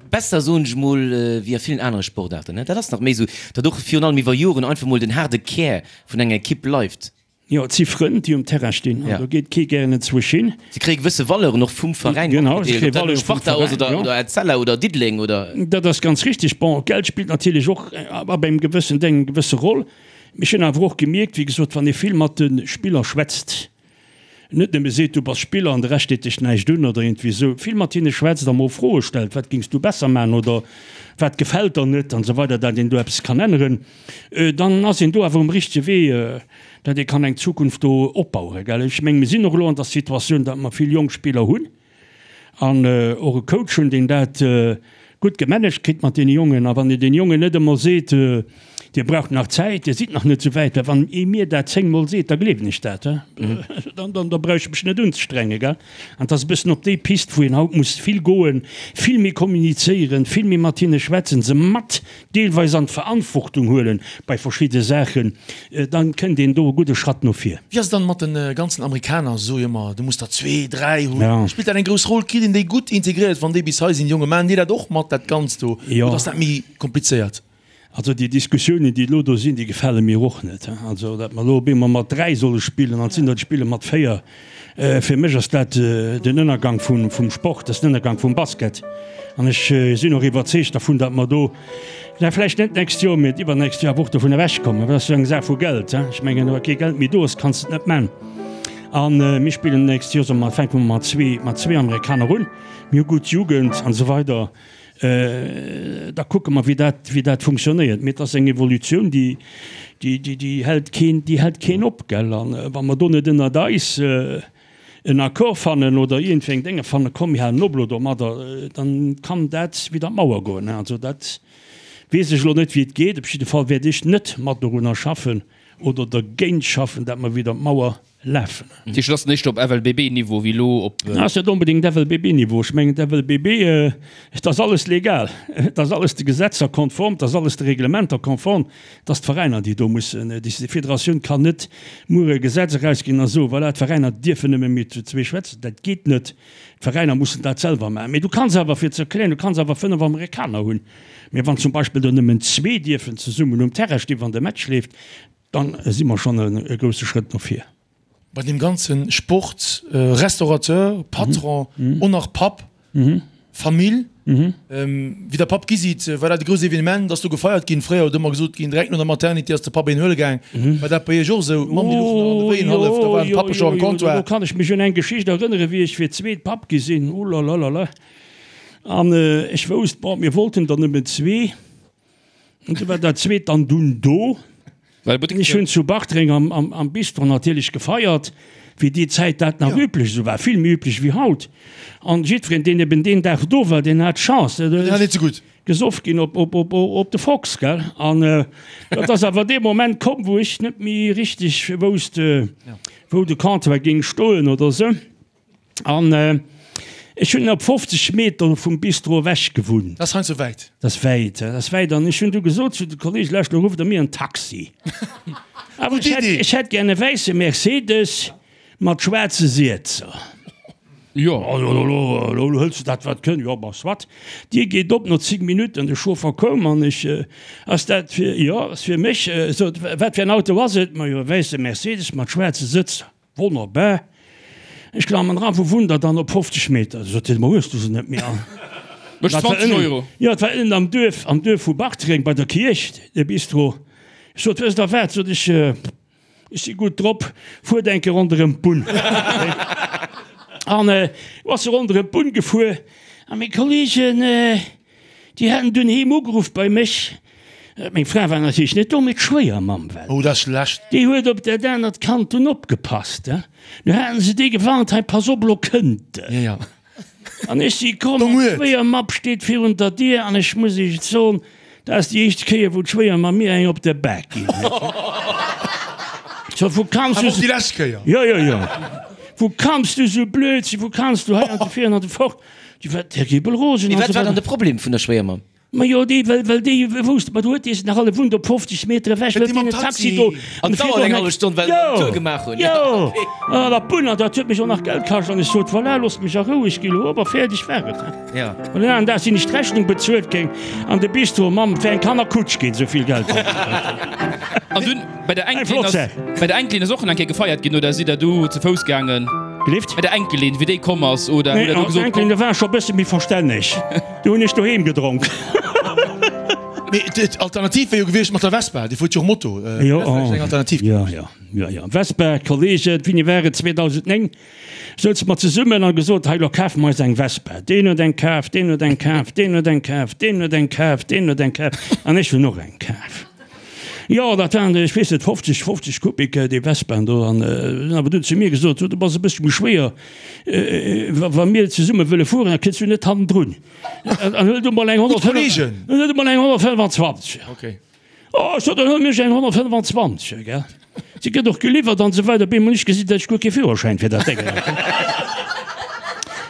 Speaker 2: Besser, soen ech mol, wéi a villen anere Sportaarten. Dat ass nach méi esou, datt och virun allem iwwer Joren einfach mol den haarde Kär vun enger Ekipp bleift.
Speaker 3: Jo, et si Frënn, déi um Terrain stinn, an do geet kee gären enzwousch hin.
Speaker 2: Si kréie gewësse Valeuren och vum Veräin matgedeelt, ob dat elo Sparta ass oder Etzella oder Diddeleng oder.
Speaker 3: Dat ass ganz richtig. Bon, Geld spillt natierlech och ab engem gewëssen Deng eng gewësse Roll. Mee ech hunn awer och gemierkt, wéi gesot, wann ee vill mat de Spiller schwätzt, net nëmme seet, du bass Spiller an de Rescht deet dech näischt un oder iergendwéi esou, vill mat hinne schwätzt a mol Froe stellt, wat géings du besser maachen oder wat gefält der net an esou weider, dat een do eppes kann änneren, dann ass een do awer um richtege Wee, dat ee kann eng Zukunft do opbauen. Gell, ech menge mir sinn och elo an der Situatioun, datt mer vill jonk Spiller hunn an och e Coach hunn, deen dat gutt gemanagt kritt mat deene Jongen. A wann een deene Jongen net emol seet, Dir braucht nach Zäit, Dir sidd nach net esou wäit, well wann ee mir dat zéngmol seet, da gleewen ech dat, dann, dann, da brauch ech mech net unzestrengen, gell. An et ass e bëssen op déi Pist, wou een haut muss vill goen, vill méi kommunizéieren, vill méi mat hinne schwätzen, se mat deelweis an d'Verantwortung huelen bei verschidde Saachen, dann kënnt een do e gudde Schratt no vir.
Speaker 4: Wéi ass et dann mat den ganzen Amerikaner? Se soe jo ëmmer, du muss der zwee, dräi hunn. Spillt dat eng grouss Roll? Kritt een déi gutt integréiert, wann déi bis hei sinn, déi Jongen? Maachen déi dat och mat, dat Ganzt do, oder ass dat méi komplizéiert?
Speaker 3: Also déi Diskussiounen, déi elo do sinn, déi gefale mir och net. Also datt mer elo op eemol mat dräi solle spillen an et sinn der, déi spille mat véier, fir mech ass dat den Ënnergang vum Sport, dat ass den Ënnergang vum Basket. An ech sinn och iwwerzeegt dervun, datt mer do, na vläicht net d'nächst Joer, mee d'iwwernächst Joer awer och dovun ewechkommen. Dat ass jo eng Saach vu Geld. Ech mengen, wa kee Geld méi do ass, kanns de et net man. A mir spillen d'nächst Joer, soe mer, fänke mer mat zwee Amerikaner un. Mir hu gutt Jugend an esou weider. Da kucke mer, wéi dat, wéi dat funktionéiert. Mee et ass eng Evolutioun, déi, déi, déi, déi hält keen, déi hält keen op, gell. An wa mer do net ënnert eis en Accord fannen oder iergendwéi eng Dénge fannen, komm mir halen op elo domadder, dann kann dat widder d'Mauer goen. Also dat weess ech elo net, wéi et geet. Op jidde Fall wäert ech net mat dorunner schaffen oder dergéint schaffen, dat mer widder d'Mauer lafen.
Speaker 5: Dat heescht, et ass éischter op FLBB-Niveau wéi elo op.
Speaker 3: Ass net onbedéngt FLBB-Niveau. Ech mengen, d'FLBB, et ass alles legal, et ass alles de Gesetzer konform, et ass alles de Reglementer konform. Et ass d'Veräiner, déi do mussen décidéieren. D'Federatioun kann net muer e Gesetz erausginn a soen, voilà, d'Veräiner dierfen nëmme méi zu zwee schwätzen. Dat geet net. D'Veräiner mussen dat selwer maachen. Mee du kanns awer, fir ze erklären, du kanns awer 5 Amerikaner hunn. Mee wann zum Beispill der nëmmen zwee dierfen zesummen um Terrain stinn, wann de Match leeft, Dann si mer schonn e grousse Schrëtt no vir.
Speaker 4: Bei deem ganze Sport, Restaurateur, Patron, och nach Papp, Famill, wéi der Papp gi sidd, war dat e grousst Evenement? Ass do gefeiert ginn? Fréier huet ëmmer gesot ginn, direkt no der Maternité ass de Papp een huele gaang. War dat bei Iech och esou? D'Mamm déi louch nach an de Wéien hallef, da war de Pappe scho am Comptoir.
Speaker 3: Do kann ech mech un eng Geschicht erënneren, wéi ech fir d'zweet Papp gi sinn, ulalalala, an ech wousst, bon, mir wollten der nëmmen zwee. An du war dat zweet dann dunn do. Ech hunn zu Bartreng am Bistro natierlech gefeiert, wéi déi Zäit dat nach üblech esou war, vill méi üblech wéi haut. An jiddwereen, deen eben deen Dag do war, deen hat d'Chance,
Speaker 4: Den hat et ze gutt.
Speaker 3: gesoff ginn op de Fox, gell. An dat ass awer dee Moment komm, wou ech net méi richteg wousst, wou de Comptoir géing stoen oder esou. An ech hunn op 50 Meter vum Bistro ewech gewunnt.
Speaker 4: Dat ass heiansdo wäit.
Speaker 3: Dat ass wäit, dat ass wäit. An ech hunn du gesot zu de Kolleegen, Lauscht, elo rufft Der mir en Taxi. Awer ech hätt, ech hätt gär e wäisse Mercedes mat schwaarze Siezer.
Speaker 5: Jo.
Speaker 3: Also elo, elo hëls de dat wat kënn. Jo, bon, soit. D'Dier geet op, no 10 Minutten, de Chauffer koum an ech, Ass dat fir, jo, ass fir mech. Sot, wat fir en Auto ass et? Majo, e wäisse Mercedes mat schwaarze Sëtzer. Wonnerbar. Ech klammen eran, Wou wunnt der dann? Op 50 Meter. Sot hien, Ma hues du se net méi all?
Speaker 5: Mécht 20 Euro.
Speaker 3: Jo, et war ënnen am Duerf, am Duerf vu Bartreng bei der Kierch, de Bistro. Ech sot, Wësst der wat, sot ech, ech si gutt drop, fuert eng Kéier ronderëm d'Bunn. An du ass se ronderëm d'Bunn gefuer a meng Kolleegen, Déi haten dunn heem ugeruff bei mech. Meng Fra war natierlech net do, mee d'Schwéiermamm war do.
Speaker 4: Oh, dat ass schlecht.
Speaker 3: Déi huet op dat anert Kand dunn opgepasst. Du haten se déi gewarnt, Hei, pass op, elo kënnt en.
Speaker 4: Ja, ja.
Speaker 3: An ech si komm an d'Schwéiermapp steet virun der Dier an ech muss Iech et soen, dat ass déi éischt Kéier, wou d'Schwéiermamm mir eng op de Bak ginn huet. So, wou kanns du.
Speaker 4: Awer och déi lescht Kéier.
Speaker 3: Jo, jo, jo. Wou kanns du sou blöd sinn? Wou kanns du hei an de vir an de fort? Déi war terribel rosen.
Speaker 2: Mee wat war dann de Problem vun der Schwéiermamm?
Speaker 3: Majo, déi, well, well déi wousst, ma do huet dee se nach alle wunnt op 50 Meter ewech,
Speaker 2: huet deen en Taxi do. An et dauert eng hallef Stonn, well se den Tour gemaach hunn.
Speaker 3: Jo, an der Bunn, an dat huet mech och nach Geld kascht. An ech sot, voilà, loosst mech a Rou, ech gi lo op a fäerdeg war et.
Speaker 2: Jo.
Speaker 3: An den aneren Dag sinn ech d'Rechnung bezuelt géing an de Bistro, Mamm, et wär eng Kannerkutsch ginn, esou vill Geld hat ech.
Speaker 5: An dunn bei der
Speaker 3: Eng
Speaker 5: Enkelin
Speaker 3: flott
Speaker 5: ass,
Speaker 3: Saach.
Speaker 5: bei der Enkelin ass och eng Kéier gefeiert ginn, oder sidd der do ze Fouss gaangen?
Speaker 3: Gelift?
Speaker 5: Bei der Enkelin, wéi déi komm ass, oder
Speaker 3: Nee,
Speaker 5: hutt der do
Speaker 3: an
Speaker 5: gesot,
Speaker 3: d'Enkelin,
Speaker 5: komm.
Speaker 3: do war ech scho e bësse méi verstänneg. Do hunn ech doheem gedronk.
Speaker 4: Mee d'Alternativ wär jo gewiescht mat der Vespa, Dir fuert jo och Moto, dat
Speaker 3: Jo,
Speaker 4: wär vläicht eng Alternativ
Speaker 3: jo,
Speaker 4: gewiescht.
Speaker 3: jo, jo, jo. Vespa, Kollegen, wéini war et? 2009 souze mer zesummen a gesot, hei, lo kafe mer eis eng Vespa. Deen huet eng kaf, deen huet eng kaf, deen huet eng kaf, deen huet eng kaf, deen huet eng kaf an ech hunn och eng kaf. Jo, dat waren, ech weess net, 50, 50 Kubik, déi Vespaen do. An hunn awer dunn zu mir gesot, Du bass e bëssche méi schwéier, wa, wa mir zesumme wëlle fueren, da kënns du net hannendrun. An huel du mol eng 125, huel du mol eng 125.
Speaker 4: Okay.
Speaker 3: Oh, ech sot, dann huelen ech eng 125, gell. Si gëtt och geliwwert an esou weider. Op eemol hunn ech gesinn, datt ech guer kee Führerschäin fir dat Déngen hat.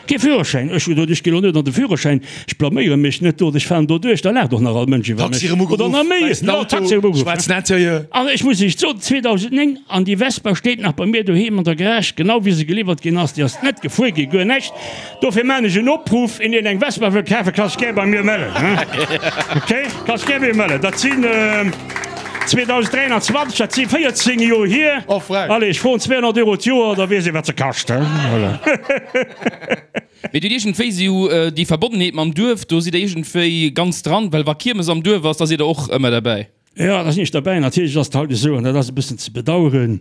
Speaker 3: Kee Führerschäin! Ech hu gesot, ech ginn elo net an de Führerschäin, ech blaméiere mech net do, ech fahren do duerch, da laacht och nach all Mënsch iwwer mech.
Speaker 4: Taxi erëm
Speaker 3: Oder
Speaker 4: ugeruff,
Speaker 3: nach méi,
Speaker 4: wäissen
Speaker 3: jo,
Speaker 4: Auto,
Speaker 3: Taxi erëm ugeruff.
Speaker 4: schwaarzen Interieur.
Speaker 3: An ech muss Iech soen, 2009, an déi Vespa steet nach bei mir doheem an der Garage, genau wéi se geliwwert ginn ass, déi ass net gefuer ginn, guer näischt. Dofir maan ech en Opruff, een deen eng Vespa wëll kafen, ka sech gär bei mir mellen. Ok, ka sech gär bei mir mellen. Dat sinn 2023, dat si 14 Joer hier.
Speaker 4: Oh frech.
Speaker 3: Allez, ech froen 200 Euro d'Joer, da weess ee wat se kascht. Voilà.
Speaker 5: Mee dir hutt iergendwéi sou déi Verbonnenheet mam Duerf, do sidd der iergendwéi ganz dran, well wa Kiermes am Duerf ass, da sidd der och ëmmer derbäi.
Speaker 3: Jo, da sinn ech derbäi. Natierlech ass et haut esou, an dat ass e bëssen ze bedauern,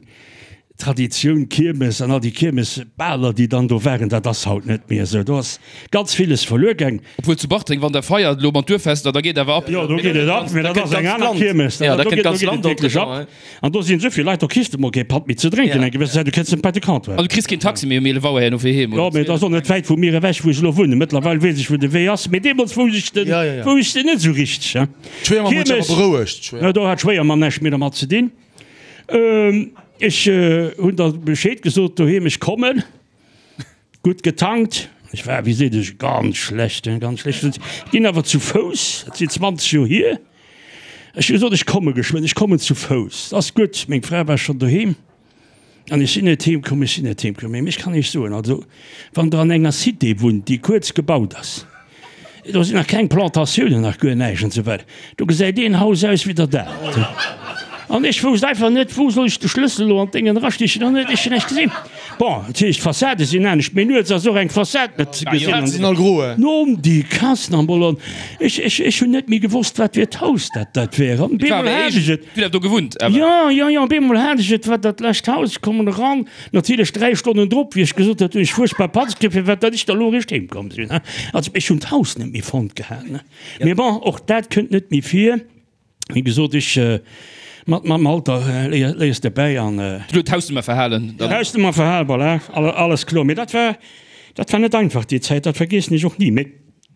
Speaker 3: Traditioun Kiermes an all déi Kiermesbaler, déi dann do waren, dat ass haut net méi esou. Do ass ganz villes verluer gaang.
Speaker 5: Obwuel zu Bartreng, wann der feiert elo mat Duerffester, da geet awer ab.
Speaker 3: Jo, do geet et ab, mee dat ass eng aner Kiermes.
Speaker 2: Jo, da
Speaker 3: Do
Speaker 2: kënnt
Speaker 3: geet
Speaker 2: ganz
Speaker 3: et
Speaker 2: Land
Speaker 3: wierklech ab. An do sinn esou vill Leit, do kriss de mol kee Patt méi ze drénken eng gewëssen Zäit, du kënns net bei de Comptoir.
Speaker 5: An du kriss keen Taxi méi um 11 Auer herno fir heem,
Speaker 3: Jo,
Speaker 5: oder?
Speaker 3: mee et ass och net wäit vu mir ewech, wou ech elo wunnen. Mëttlerweil weess ech, wou de Wee ass, mee deemools wousst ech den, wousst ech den net esou richteg, hein.
Speaker 4: D'Schwéiermamm huet sech awer berouegt.
Speaker 3: Jo, do hat d'Schwéiermamm näischt méi dermat ze dinn. Ech hunn da Bescheed gesot doheem, ech kommen. Gutt getankt. Ech war, wéi seet ech, ganz schlecht, hein, ganz schlecht. Ginn awer zu Fouss, dat sinn 20 Joer hier. Ech hu gesot, ech komme geschwënn, ech kommen zu Fouss. Ass gutt, meng Fra war schonn doheem. An ech sinn net heem komm, ech sinn net heem komm. Mee ech kann Iech soen, also wann Der an enger Cité wunnt, déi kuerz gebaut ass, do sinn nach keng Plantatiounen, nach guer näischt an esou weider, do gesäit een Haus aus wéi der dat. An ech wousst einfach net, wou soll ech de Schlëssel elo an d'Déngen erastichen an ech hunn näischt gesinn. Bon, dat heescht, d'Fassade sinn anescht, mee nuets ass och eng Fassad net ze gesinn. Nom déi Kassen am Bol an ech, ech, ech hunn net méi gewosst, wat fir d'Haus dat dat wär. An bemol hat ech et.
Speaker 5: Dir hutt do gewunnt awer?
Speaker 3: Jo, jo, jo, bemol hat ech et, wat dat lescht Haus, ech kommen eran, natierlech 3 Stonnen drop, wéi ech gesot hat, hunn ech fuerchtbar Panz kritt, firwat datt ech da lo eréischt heem komm sinn. Also ech hunn d'Haus net méi fonnt gehat, ne. Mee bon, och dat kënnt net méi vir. Wéi gesot, ech, mat, mam Alter léier, léiers de bäi an.
Speaker 5: Du huet d'Hausnummer verhalen.
Speaker 3: D'Hausnummer verhalen, voilà, alles kloer. Mee dat war, dat war net einfach déi Zäit, dat vergiessen ech och ni. Mee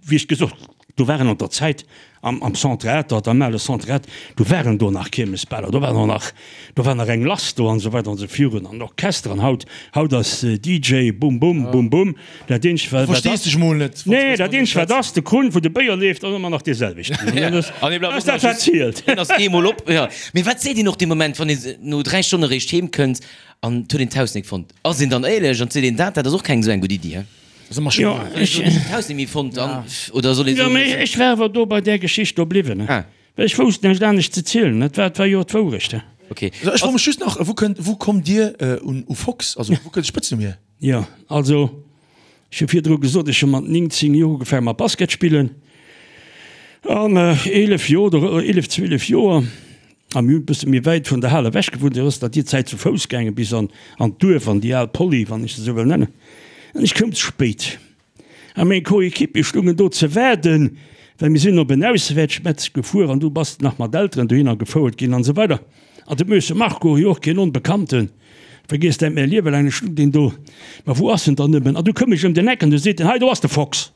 Speaker 3: wéi ech gesot, do waren an der Zäit am, am Centre Atert, am ale Centre Atert, do waren do nach Kiermesbaler, do war nach, do war nach eng lass do an esou weider an esou virun an Orchester an haut, haut ass DJ bum bum, bum bum. Dat eenzegt wat, wat
Speaker 4: Verstees
Speaker 3: ass,
Speaker 4: dech mol net, wann s
Speaker 3: nee,
Speaker 4: du
Speaker 3: dat
Speaker 4: mat
Speaker 3: eenzegt wat
Speaker 4: schwätz.
Speaker 3: ass, de Krunn wou de Béier leeft ass ëmmer nach dee selwechten. An dat ass,
Speaker 2: An dee bleift
Speaker 3: ass
Speaker 2: och
Speaker 3: dat
Speaker 2: nach
Speaker 3: wat
Speaker 2: just,
Speaker 3: zielt.
Speaker 2: deen ass eemol op, jo. Mee wat seet een och dee Moment, wann ee no 3 Stonne eréischt heem kënnt an 't huet een d'Haus nik fonnt? Ass een dann éierlech an seet een dat? Dat ass och keng esou eng gutt Iddi, he? Jo, ech. D'Haus net méi fonnt an, oder soll ee
Speaker 3: soen. Jo, mee ech war awer do bei där Geschicht do bliwwen, well ech wousst näischt anescht ze zielen. Dat war, dat war jo d'Wourecht.
Speaker 4: Okay. Ech froe mech just nach, Wou kënnt, wou kommt Dir un u Fox? Also wou kënnt de Spëtznumm hier?
Speaker 3: Jo, also ech hu virdru gesot, ech hu mat 19 Joer ugefaange mat Basket spillen an 11 Joer oder 11, 12 Joer A mir hunn e bësse méi wäit vun der Hal ewech gewunnt, esou ass dat déi Zäit zu Fouss gaangen bis an an d'Duerf, an déi al Poly, wann ech se esou wëll nennen. An ech koum ze spéit. A meng Coéquipier stungen do ze waarden, well mir sinn op en Auswäertsmatch gefuer an du bass nach mat Elteren dohinner gefouert ginn an esou weider. An de Möse Marco, jo och keen Onbekannten, vergiess dat mäi Liewe laang net, stung deen do, Ma wou ass en dann nëmmen? An du koum ech ëm den Eck an du seet en, Hei do ass de Fox.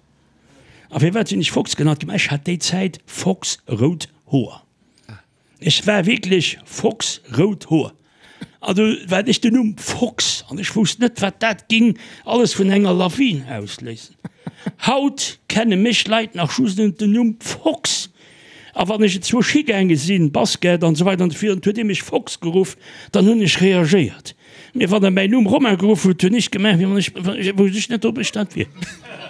Speaker 3: A firwat sinn ech Fox genannt ginn? Ma ech hat déi Zäit foxrout Hoer. Ech war wierklech Fox, rout Hoer. An du war ech den Numm Fox an ech wousst net, wat dat ging alles vun enger Lawin ausléisen. Haut kenne mech Leit nach just ënnert dem Numm Fox. A wann ech enzwousch higaange sinn, Basket an esou weider an esou virun, huet ee mech Fox geruff, dann hunn ech reagéiert. Mee wann e mäin Numm Romain geruff huet, hunn ech gemaach, wéi wann ech, wousst ech net, ob ech dat wier.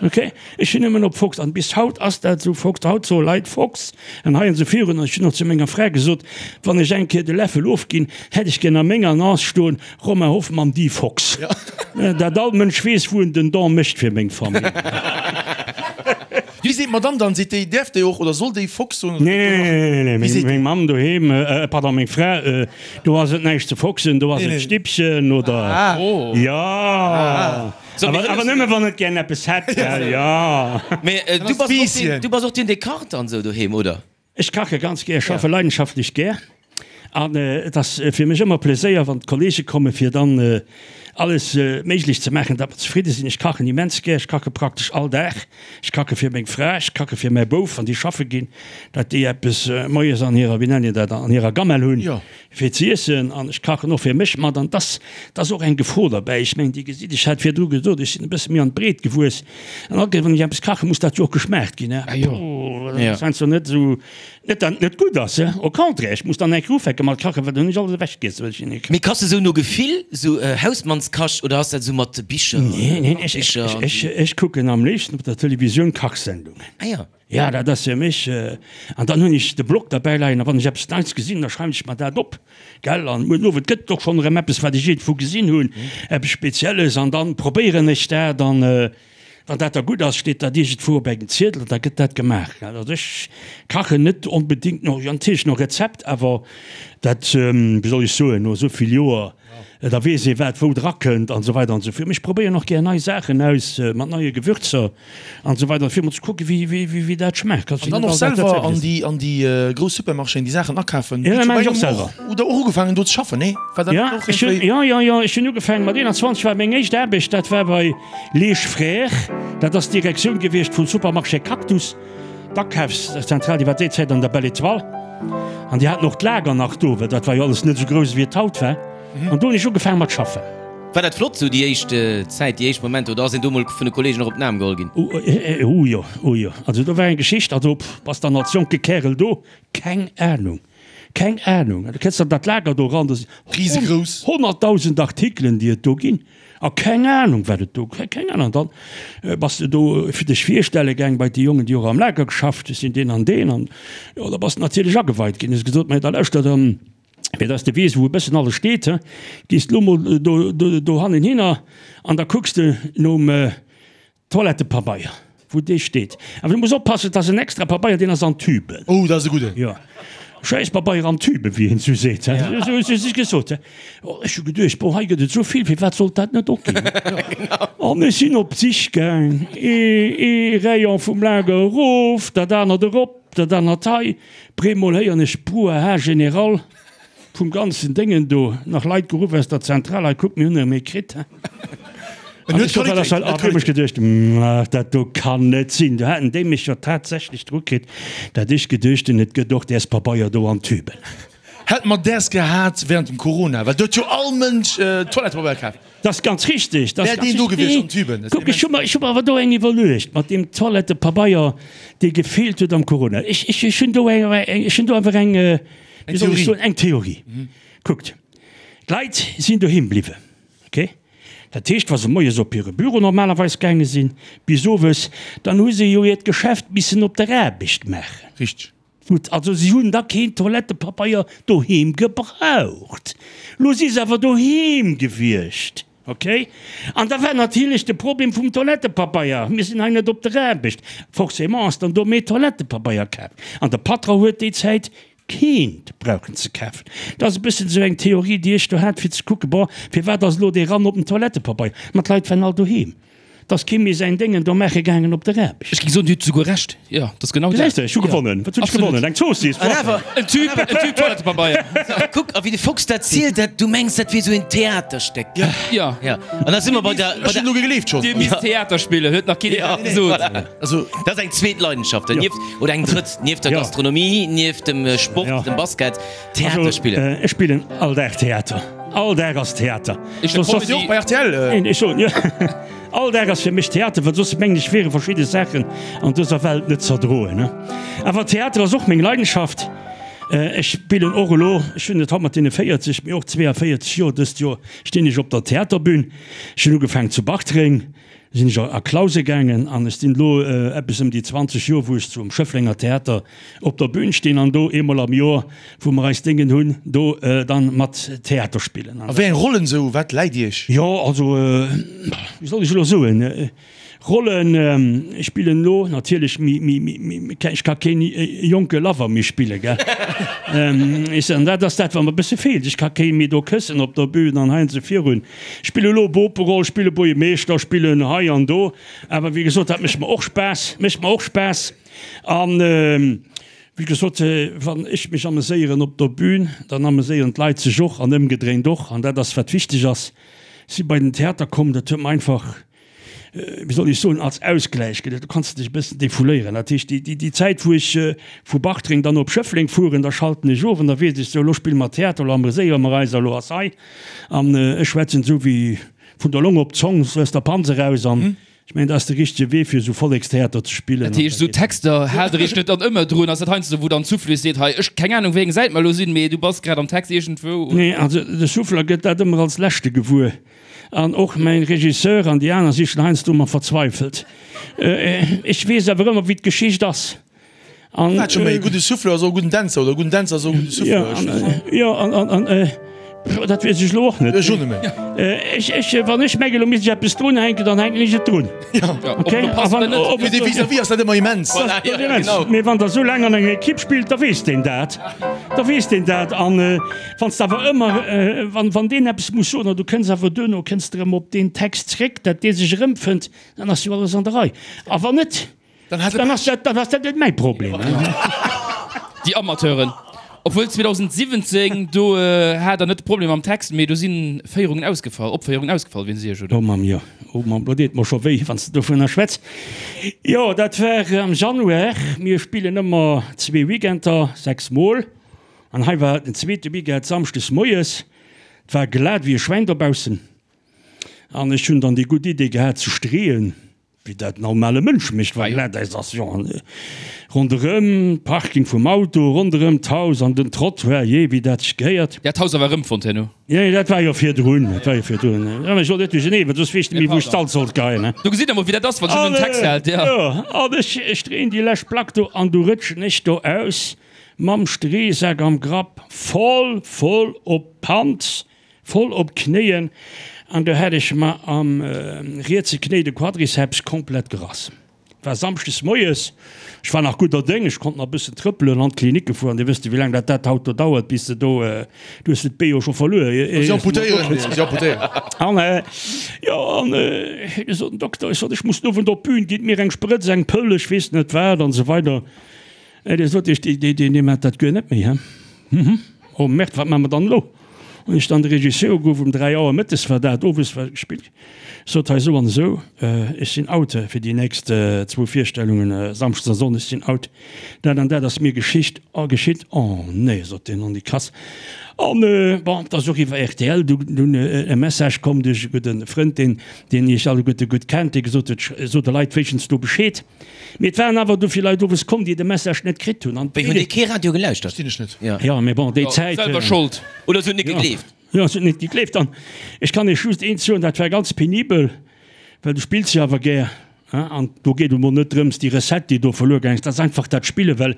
Speaker 3: Ok, ech hunn nëmmen op Fox, an bis haut ass dat esou, Fox, haut soe Leit Fox an hei an esou virun. An ech hunn och zu menger Fra gesot, wann ech eng Kéier de Läffel ofginn, hätt ech gär a menger Annonce stoen, Romain Hoffmann, dit Fox. Dat all Mënsch weess, wou en den Don mécht fir meng Famill.
Speaker 4: Wéi seet d'Madame dann? Seet déi, däerf déi och oder soll déi Fox soen?
Speaker 3: Nee, nee, nee, nee, nee, meng Mamm doheem, pardon, meng Fra, do ass et näischt ze foxen, do ass et Stippchen oder, jo, awer nëmme wann et gären eppes hätt, gell, jo.
Speaker 2: Mee du bass och deen, du bass och deen, dee kacht an esou doheem, oder?
Speaker 3: Ech kache ganz gär, ech schaffe leidenschaftlech gär. An et ass fir mech ëmmer Pleséier, wann d'Kollege kommen, fir dann alles méiglech ze maachen, datt mer zefridde sinn. Ech kachen immens gär, ech kache praktesch all Dag. Ech kache fir meng Fra, ech kache fir mäi Bouf, wann déi schaffe ginn, datt déi eppes moies an hirer, wéi nennt een dat, an hirer Gamell hunn, fir ze iessen. An ech kachen och fir mech mat. An et ass, et ass och eng Gefor derbäi. Ech mengen, Dir gesitt, ech hat virdru gesot, ech sinn e bësse méi an d'Breet gewuess. An all Kéier, wann ech eppes kachen, muss dat jo och geschmaacht ginn. Dat ass heiansdo net esou. Net dat et net gutt ass, au contraire, ech muss dann eng Kéier ufänke mat kachen, well dann hunn ech alles ewechgiess, wat ech hinne
Speaker 2: Mee kachs de sou no Gefill, sou Hausmannskach, oder ass dat sou mat Bicher?
Speaker 3: Nee, nee, ech, ech, ech, ech kucken am léifsten op der Televisioun Kachsendungen.
Speaker 2: Ah jo.
Speaker 3: Ja, dat ass fir mech, an dann hunn ech de Blog derbäi leien, a wann ech eppes Neits gesinn, da schreiwen ech mer dat op, gell, an muer den Owend gëtt et och schonn erëm eppes, wat ech iergendwou gesinn hunn, eppes Spezielles, an dann probéieren ech dat, an. Wann dat da gutt ass, steet dat iergendwou op engem Ziedel an da gëtt dat gemaach. Also ech kachen net onbedéngt no, jo natierlech no Rezept, awer dat, wéi soll ech soen, no esou vill Joer, da weess ee wat wou drakënnt an esou weider an esou virun. Ech probéieren och gär nei Saachen aus mat neie Gewürzer an esou weider fir emol ze kucken, wéi, wéi dat schmaacht.
Speaker 4: An dann och selwer an déi, an déi grouss Supermarchéen déi Saachen akafen?
Speaker 3: Jo, dat maachen ech och selwer.
Speaker 4: Hutt Der och ugefaangen do ze schaffen, nee?
Speaker 3: War dat net och iergendwéi? Jo, jo, jo, ech hunn ugefaangen mat 21 war meng éischt Aarbecht, dat war bei. Leesch Frères, dat ass d'Direktioun gewiescht vum Supermarché Cactus, d'Akafszentral, déi war déi Zäit an der Belle Etoile. An déi haten och d'Lager nach do, well dat war jo alles net esou grouss, wéi et haut war. An do hunn ech ugefaange mat schaffen.
Speaker 2: War dat flott esou déi éischt Zäit, déi éischt Momenter, oder ass een do mol vun de Kollegen och op den Aarm geholl ginn?
Speaker 3: Oh jo, oh jo. Also do war eng Geschicht, also bass dann als jonke Kärel do, keng Ahnung, keng Ahnung. Du kënns an dat Lager do eran, do sinn 100.000 Artikelen, déi et do ginn. A keng Ahnung wat et do, keng Ahnung. An dann bass de do fir dech virstelle gaang bei déi Jongen, déi och am Lager geschafft hunn, ech sinn deen an deen. An jo, da bass de natierlech ageweit ginn. Hues gesot, mä da lauschter, fir dass de weess wou e bëssen alles steet, he, gees de lo mol do, do, dohannen hinner an da kucks de nom, Toilettepabeier, wou dee steet. Awer du muss oppassen, et ass en extra Pabeier, deen ass an Tüben.
Speaker 4: Oh, dat ass e gudden.
Speaker 3: Jo, Schäisspabeier an Tüben, wéi een esou seet, he. Esou hu se sech gesot, he. Oh, ech hu geduecht, bon, hei gëtt et esou vill, firwat sollt dat net och ginn? An ech sinn op d'Sich gaang, ee, ee Rayon vum Lager erof, dat anert erop, dat anert hei. Breemol héieren ech Brouhaha général. Vum ganzen Déngen do, nach Leit geruff aus der Zentral, hei kuckt, mir hunn erëm ee kritt. An ech sot, wat ass dat? An hu mech geduecht, ach, dat do kann net sinn. Do haten déi mech jo tatsächlech dru kritt, dat ech geduecht hunn, et gëtt och däers Pabeier do an Tüben.
Speaker 4: Hätt mer däers gehat während dem Corona, well do huet jo all Mënsch Toilettepabeier kaf.
Speaker 3: Dat ass ganz richtig. Dat ass
Speaker 4: Wär deen do gewiescht an Tüben.
Speaker 3: Kuck, ech hu mer, ech hu mer awer do eng iwwerluecht mat deem Toilettepabeier, dee gefeelt huet am Corona. Ech, ech, ech hunn do eng, ech hunn do einfach eng, wéi soll ech soen, eng Theorie. Kuckt, d'Leit sinn doheem bliwwen, okay? Dat heescht, wa se moies op hire Büro normalerweis gaange sinn, bis owes, dann hu se jo hiert Geschäft missen op der Aarbecht maachen.
Speaker 4: Richteg.
Speaker 3: Gutt, also si hunn da keen Toilettepabeier doheem gebraucht. Lo si se awer doheem gewiescht, okay? An da war natierlech de Problem vum Toilettepabeier, mir sinn hei net op der Aarbecht, forcément ass dann do méi Toilettepabeier kaf. An de Patron huet déi Zäit keent brauchen ze kafen. Dat ass e bëssen esou eng Theorie, déi ech do hat, fir ze kucken, bon, firwat ass elo dee Rann op den Toilettepabeier? Ma d'Leit waren all doheem. 't ass kee méi säin Déngen do maache gaangen op der Aarbecht.
Speaker 5: Ech géing soen, Dir hutt souguer Recht. Jo, dat ass genau dat.
Speaker 3: Gesäis de, ech hu gewonnen. Wat hunn ech gewonnen? Eng Zoossiss.
Speaker 2: An awer.
Speaker 5: En Tüb, en Tüb Toilettepabeier.
Speaker 2: Kuck, a wéi de Fox dat zielt, dat, du mengs, dat wier esou een Theaterstéck.
Speaker 5: Jo.
Speaker 2: Jo. An da si mer bei der, bei
Speaker 4: Ech hunn
Speaker 2: der.
Speaker 4: elo gegleeft schonn.
Speaker 5: Dir misst Theater spillen, huet nach keen iwwerhaapt gesot.
Speaker 2: Voilà.
Speaker 4: Also.
Speaker 2: Dat ass eng zweet Leidenschaft, nieft, oder eng drëtt, nieft der Gastronomie, nieft dem Sport, dem Basket. Theater spillen.
Speaker 3: Ech spillen all Dag Theater. All Dag ass Theater.
Speaker 5: Ech
Speaker 4: Soss och bei rtl.
Speaker 3: Ech soen jo. All Dag ass fir mech Theater, well soss mengen ech wiere verschidde Saachen an dëser Welt net z'erdroen. Awer Theater ass och meng Leidenschaft. Ech spillen och elo, ech hunn et haut mat deene 40, mee och 42 Joer, dëst Joer stinn ech op der Theaterbün. Ech hunn ugefaangen zu Bartreng. Sinn ech a Clause gaangen an ech sinn elo eppes ëm déi 20 Joer, wou ech zum Schëfflenger Theater op der Bühn stinn an do eemol am Joer, wou mer eis Déngen hunn, do dann mat Theater spillen.
Speaker 4: A wéi eng Rollen esou? Wat läit Iech?
Speaker 3: Jo, also, wéi soll ech elo soen, Rollen, ech spillen elo natierlech méi, méi, méi, ech ka keen jonke Lover méi spillen, gell. Ech soen, dat ass dat, wat mer e bësse feelt, ech ka kee méi do këssen op der Bühn an hei an esou virun. Spille lo Boperoll, spille Buergermeeschter, spillen hei an do. Awer wéi gesot, dat mécht mer och Spaass, mécht mer och Spaass. An wéi gesot, wann ech mech ameséieren op der Bühn, dann ameséieren d'Leit sech och an ëmgedréint och. An dat ass wat wichteg ass. Si bei den Theater komm, dat huet mer einfach, wéi soll ech soen, als Ausgläich gëtt et, do kanns de dech e bëssen defouléieren. Dat heescht, déi, déi Zäit, wou ech vu Bartreng dann op Schëffleng fueren, da schalten ech of an da weess ech, sou, elo spille mer Theater, elo ameséiere mer eis a elo ass hei. An ech schwätzen esou wéi vun der Long op d'Zong, sou aus der Panz eraus. An ech mengen, dat ass de richtege Wee, fir esou Vollekstheater ze spillen.
Speaker 5: Dat heescht, esou Texter haalt Der Iech net dann ëmmer drun? Ass dat heiansdo, wou dann d'Souffleuse seet, hei, ech, keng Anung, wéi eng Säit mer elo sinn, mee du bass grad am Text iergendwou?
Speaker 3: Nee, also de Souffleur gëtt dat ëmmer als Leschte gewuer. An och mäin Regisseur an déi aner si schon heiansdo ëmmer verzweifelt. Ech weess awer ëmmer, wéi d'Geschicht ass.
Speaker 4: An, Wat scho méi, e gudde Souffleur ass och e gudden Dänzer oder e gudden Dänzer ass och e gudde Souffleur.
Speaker 3: Jo, an, an, dat weess ech elo och net.
Speaker 4: Ech och net méi.
Speaker 3: Ech, ech, wann ech mengen, elo misst ech eppes drunhänken, dann hänken ech et drun.
Speaker 4: Jo.
Speaker 3: Okay?
Speaker 4: A wann, ob Fir dee Vis-à-vis ass dat ëmmer immens.
Speaker 3: Voilà, jo, genau. Mee wann der esou laang an enger Ekipp spillt, da weess deen dat. Da weess deen dat. An wann s de awer ëmmer, wann, wann deen eppes muss soen an du kënns awer duerno, kënns de erëm op deen Text zréck, dat dee sech erëmfënnt, dann ass jo alles an der Rei. A wann net,
Speaker 4: Dann hat
Speaker 3: dann ass dat, dann ass dat net mäi Problem.
Speaker 5: Déi Amateuren. Obwuel 2017, do hat der net de Problem mam Text, mee do si Féierungen ausgefall, Opféierungen ausgefall, wéinst Iech, oder?
Speaker 3: Oh Mamm, jo. Oh Mamm, lo deet mer scho wéi, wann s de dovunner schwätz. Jo, dat war am Januar. Mir spillen ëmmer zwee Weekender, 6 mol. An hei war den zweete Weekend samschdes moies. Et war glat wéi e Schwäin dobaussen. An ech hunn dann déi gutt Idee gehat ze streeën. Wéi dat normale Mënsch mécht, wa Glatäis ass, jo, an ronderëm d'Parking vum Auto, ronderëm d'Haus an den Trottoir, jee, wéi dat sech gehéiert.
Speaker 5: Dat Haus awer erëmfonnt herno?
Speaker 3: Jo, dat war jo virdrun, dat war jo virdrun. Jo, mä ech wollt net duercherneen, well soss weess ech net méi, wou ech d'Salz sollt geheien, he.
Speaker 5: Do gesitt Der mol, wéi dat ass, wann s du den Text hält,
Speaker 3: jo. Jo, an ech, ech dréien déi lescht Plack do an du rëtschen ech do aus mam Streesak am Grapp, voll, voll op d'Panz, Voll op d'Knéien an do hat ech mer am rietse Knéi de Quadriceps komplett gerass. War Samschdes moies, ech war nach gudder Déng, ech konnt nach e bëssen trëppelen an d'Klinik gefuer an Dir wësst jo wéi laang dat dat haut do dauert bis de do, du hues de d'Bee jo scho verluer.
Speaker 4: Si amputéieren, si amputéieren.
Speaker 3: An jo an du sot den Dokter, ech sot ech muss den Owend op d'Bün, gitt mir eng Sprëtz, eng Pëll, ech weess net wat an esou weider. Dee sot, ech, dee, dee, dee mat dat guer net méi, he? Hm, oh Merde, wat maache mer dann elo? Hunn ech dann de Regisseur ugeruff, um 3 Auer mëttes war dat, owes war gespillt, sot, hei esou an esou, ech sinn out fir déi nächst zwou Virstellungen, samschdes a sonndes sinn out, dat an dat ass mir geschicht, geschitt. Oh nee, sot deen, on déi krass. An bon, et ass och iwwer rtl dunn e Message komm duerch e gudde Frënd, deen, deen iech alleguerte gutt kennt, dee gesot huet, sot de Leit wéinstens do Bescheed. Mee et waren awer dovill Leit owes komm, déi de Message net kritt hunn.
Speaker 2: Wéi, hunn déi kee Radio gelauschtert?
Speaker 4: Verstinn ech net.
Speaker 3: Jo, mee bon, déi Zäit.
Speaker 5: Selwer Schold.
Speaker 2: Oder se hunn net gegleeft.
Speaker 3: Jo, se huet net gegleeft. An ech kann Iech just eent soen, dat war ganz penibel, well du spills jo awer gär, hein, an do geet et emol net drëms, déi Recette, déi do verluer gaang ass, dat ass einfach dat Spillen, well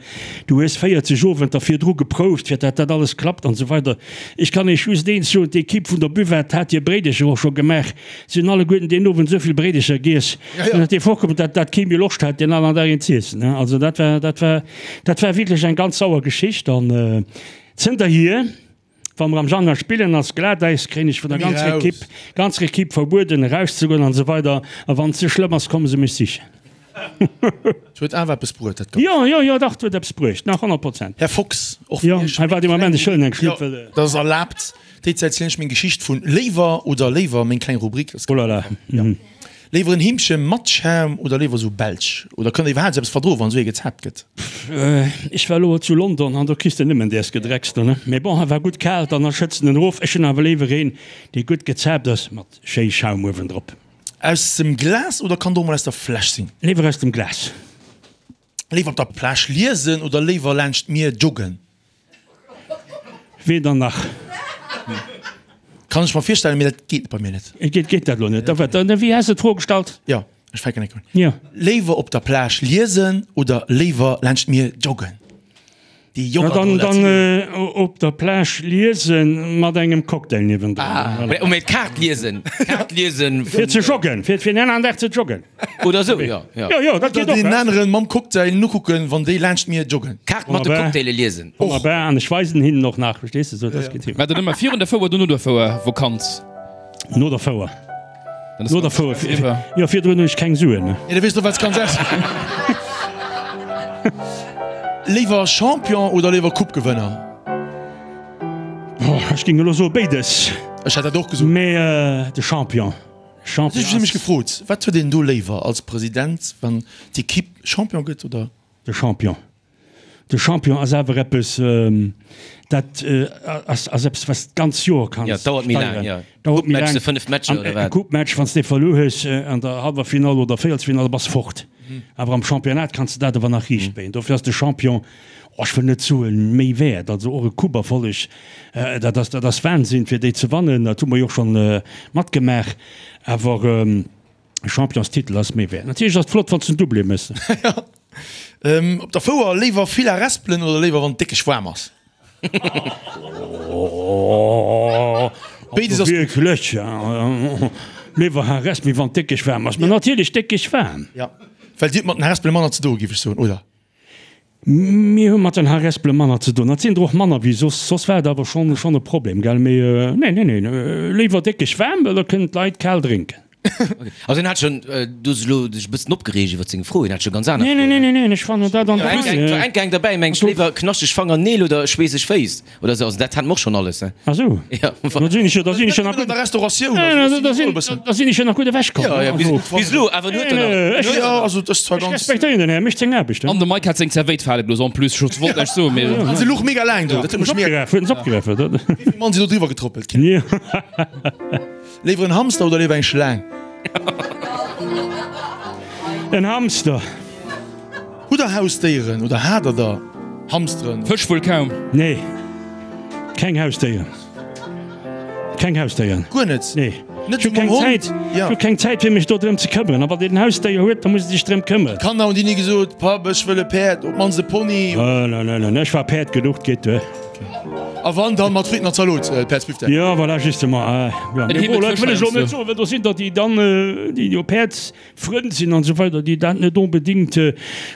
Speaker 3: du hues 40 Owenter virdru geprouft, fir dat dat alles klappt an esou weider. Ech kann Iech just eent soen, d'Equipe vun der Buvette hat hir Bréidecher och scho gemaach, si hunn alleguerten deen Owend esou vill Bréidecher giess, dat dir vorkomm, dat dat kee méi Loscht hat, deen aneren Dag een z'iessen, hein. Also dat war, dat war, dat war wierklech eng ganz sauer Geschicht an zënterhier. Wa mer am Januar spillen ass Glatäis, kréien ech vun der ganzer Equipe, ganzer Equipe verbueden erauszegoen an esou weider A wann et ze schlëmm ass, komme se mech sichen.
Speaker 4: Et huet awer eppes bruet, dat Ganzt.
Speaker 3: Jo, jo, jo, dach, et huet eppes bruecht, nach 100%.
Speaker 4: Här Fox, och
Speaker 3: vun Iech. Jo, hei waart ee Moment, ech huelen eng Schlupp, well.
Speaker 4: Dat ass erlaabt. Déi Zäit zielen ech meng Geschicht vun Léiwer oder Léiwer, meng kleng Rubrik.
Speaker 3: Oh là là.
Speaker 4: Léiwer en Heemche mat Schaum oder léiwer sou belsch? Oder kënnt der iwwerhaapt sou eppes verdroen, wann sou ee gezaapt gëtt?
Speaker 3: Ech war elo zu London an do kriss de nëmmen däers Gedrecks do, ne? Mee bon, war gutt kal, dann schëtzt en erof. Ech hunn awer léiwer een, dee gutt gezaapt ass, mat schéi Schaum uewendrop.
Speaker 4: Aus dem Glas oder kann et och mol aus der Fläsch sinn?
Speaker 3: Léiwer aus dem Glas.
Speaker 4: Léiwer op der Plage liesen oder léiwer laanscht d'Mier joggen?
Speaker 3: Weder nach.
Speaker 4: Kann ech mer virstellen, mee dat geet bei mir net.
Speaker 3: Geet, geet dat lo net? Da wat, wéi has de d'Fro gestallt?
Speaker 4: Jo, ech fänken enk un.
Speaker 3: Jo.
Speaker 4: Léiwer op der Plage liesen oder léiwer laanscht d'Mier joggen?
Speaker 3: Déi Jogger do, dat sinn. Dann op der Plage liesen mat engem Cocktail niewendrun.
Speaker 2: Ah, mee d'Kaart liesen, d'Kaart liesen.
Speaker 3: Fir ze joggen, fir fir en aneren Dag ze joggen.
Speaker 2: Oder sou, jo,
Speaker 3: jo. Jo, jo, dat geet
Speaker 4: och. Oder deen aneren mam Cocktail nokucken, wann déi laanscht d'Mier joggen.
Speaker 2: D'Kaart mat de Cocktaile liesen.
Speaker 3: Wonnerbar, an ech weisen hinnen och nach, verstees de, sou, dat geet hin.
Speaker 5: War dat ëmmer virun der Fouer oder no der Fouer Vakanz?
Speaker 3: No der Fouer. No der Fouer. Jo, virdrun hunn ech keng Suen.
Speaker 4: Jo, da weess de och, wat s kanns ausginn. Léiwer Champion oder léiwer Coupe-Gewënner?
Speaker 3: Ech géing elo soe béides.
Speaker 4: Ech hätt dat och gesot.
Speaker 3: Mee de Champion.
Speaker 4: Champion ass. Ech hu mech gefrot, wat huet een do léiwer als President, wann d'Ekipp Champion gëtt oder?
Speaker 3: De Champion. De Champion ass awer eppes, dat ass eppes, wat s d'ganz Joer kanns
Speaker 2: steieren. Dauert méi laang, jo.
Speaker 3: Dauert méi laang.
Speaker 2: Coupe-Match, 5 Matcher oder wat?
Speaker 3: E Coupe-Match, wann s de verluer hues an der hallwer Finall oder Véierelsfinall, da bass fort. Awer am Championnat kanns de dat awer nach riicht béien. Dofir ass de Champion, oh, ech wëll net soen, méi wäert. Also och e Coupe-Erfolleg, dat ass, dat ass Wahnsinn, fir déi ze wannen. Dat hu mer jo och schonn matgemaach. Awer. E Championstitel ass méi wäert. Natierlech ass et flott wann s de en Doublé méchs.
Speaker 4: Op der Fouer léiwer vill Harespelen oder léiwer wann et déckeg waarm ass?
Speaker 3: Béides ass gutt. Wierklech? Léiwer Harespel wéi wann et déckeg waarm ass. Mä natierlech déckeg waarm.
Speaker 4: Jo, well dir hutt mat den Harespele manner ze doe giff ech soen, oder?
Speaker 3: Mir hu mat den Harespele manner ze doen. Dat sinn der och manner wéi soss. Soss war et awer schonn schonn e Problem, gell? Mee nee, nee, nee, léiwer déckeg waarm, well da kënnen d'Leit kal drénken.
Speaker 2: Also hien hat schonn, du hues elo dech e bëssen opgereegt iwwer seng Fro, hien hat scho ganz aner
Speaker 3: Froen. Nee, nee, nee, nee, ech fannen dat an der
Speaker 2: Rei. Et war enk eng derbäi, meng ech, léiwer knaschteg Fangerneel oder schweesseg Féiss oder esou. Also dat hat mer och schonn alles, ne?
Speaker 3: Ah sou,
Speaker 2: Ja.
Speaker 3: da sinn ech jo, da sinn ech jo nach gutt.
Speaker 4: An der Restauratioun, also
Speaker 3: da sinn, da sinn ech jo nach gutt ewechkomm.
Speaker 2: Ja, ja, bis, bis elo, awer en huet der nach.
Speaker 3: Ech,
Speaker 4: Ja, also dat ass zwar
Speaker 3: ech
Speaker 4: ganz.
Speaker 3: respektéieren den Här, mécht seng Aarbecht,
Speaker 5: ne? An de Mike hat seng Zerwéit fale gelooss en plus, ech wollt näischt soen, mee.
Speaker 4: An se luch mega laang do, dat huet mech mega.
Speaker 3: Huet en se opgeraf,
Speaker 4: huet en se opgeraf. Wéi vill Mann sinn do driwwer getrëppelt?
Speaker 3: Jo.
Speaker 4: Léiwer en Hamster oder léiwer eng Schlaang?
Speaker 3: En Hamster.
Speaker 4: Hutt der Hausdéieren oder hat der der Hamsteren?
Speaker 5: Fësch wuel kaum.
Speaker 3: Nee, keng Hausdéieren. Keng Hausdéieren.
Speaker 4: Guer net?
Speaker 3: Nee.
Speaker 4: Net
Speaker 3: Ech hu keng
Speaker 4: mam Hond?
Speaker 3: Zäit.
Speaker 4: Ja.
Speaker 3: Ech hu keng Zäit fir mech do drëm ze këmmeren. A wann een en Hausdéier huet, da muss e sech drëm këmmeren.
Speaker 4: D'Kanner hunn déi ni gesot, Papp, ech wëll e Päerd, op d'mannst e Pony?
Speaker 3: Nö, nö, nö, nö, ech war Päerd genuch, 't geet duer.
Speaker 4: A wann, dann mat Fritten an Zalot, Päerdsbifdeck.
Speaker 3: Jo, voilà, justement. Jo, mee bon, dat wëll ech elo net soen, well do sinn der, déi dann, déi jo Päerdsfrënn sinn an esou weider, déi dat net onbedéngt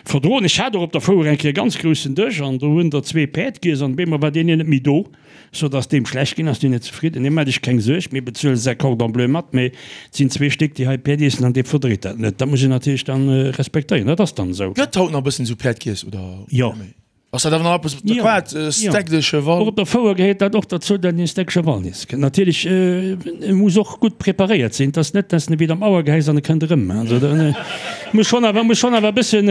Speaker 3: verdroen. Ech hat och op der Fouer eng Kéier e ganz groussen Dësch an do hunn der zwee Päerd giess an op eemol war deen een net méi do, sou dass deem schlecht ginn ass, deen net zefridden. Nee, maacht Iech keng Suerg, mir bezuele säi Cordon bleu mat, mee et sinn zwee Stéck, déi hei Päerd iessen an dee verdréit dat net. Dat muss een natierlech dann respektéieren, dat ass dann esou.
Speaker 4: Gëtt haut nach e bëssen esou Päerd giess oder
Speaker 3: Jo.
Speaker 4: net méi? Ass dat awer nach eppes op der Quart, e Steak de Cheval?
Speaker 3: Och op der Fouer gehéiert dat och derzou, datt een e Steak Cheval iesse kënnt. Natierlech, e muss och gutt preparéiert sinn. Et ass net, datt en ewéi am Auer gehäis an e kënnt erëm. Also da muss schonn awer, muss schonn awer e bëssen,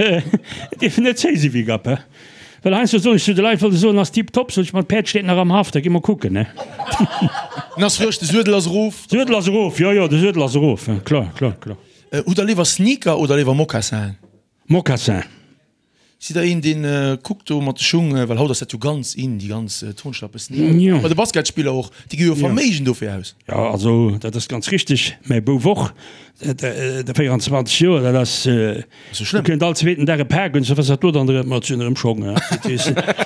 Speaker 3: dierf net zéi si wéi Gapp, he. Well heiansdo soen ech zu de Leit, wëll se soen, ass tiptop, sot ech, ma d'Päerd steet nach am Haff, da gi mer kucken, he.
Speaker 4: En ass frësch, de Suedel ass erof.
Speaker 3: Suedel ass erof, jo, jo, de Suedel ass erof, kloer, kloer, kloer.
Speaker 4: Hutt der léiwer Sneaker oder léiwer Moccassinen?
Speaker 3: Mocassin.
Speaker 4: Sidd der een deen kuckt do mat de Schung, well haut ass dat jo ganz in, déi ganz Turnschlappen, Sneaker, bei de Basketspiller och, déi gi jo Verméigen dofir aus.
Speaker 3: Jo, also dat ass ganz richteg, mäi Bouf och, de 24 Joer, dat ass, do kënnt all zweeten Dag e Pak un, sou was ass dat do dann erëm, ma et sinn erëm Schong,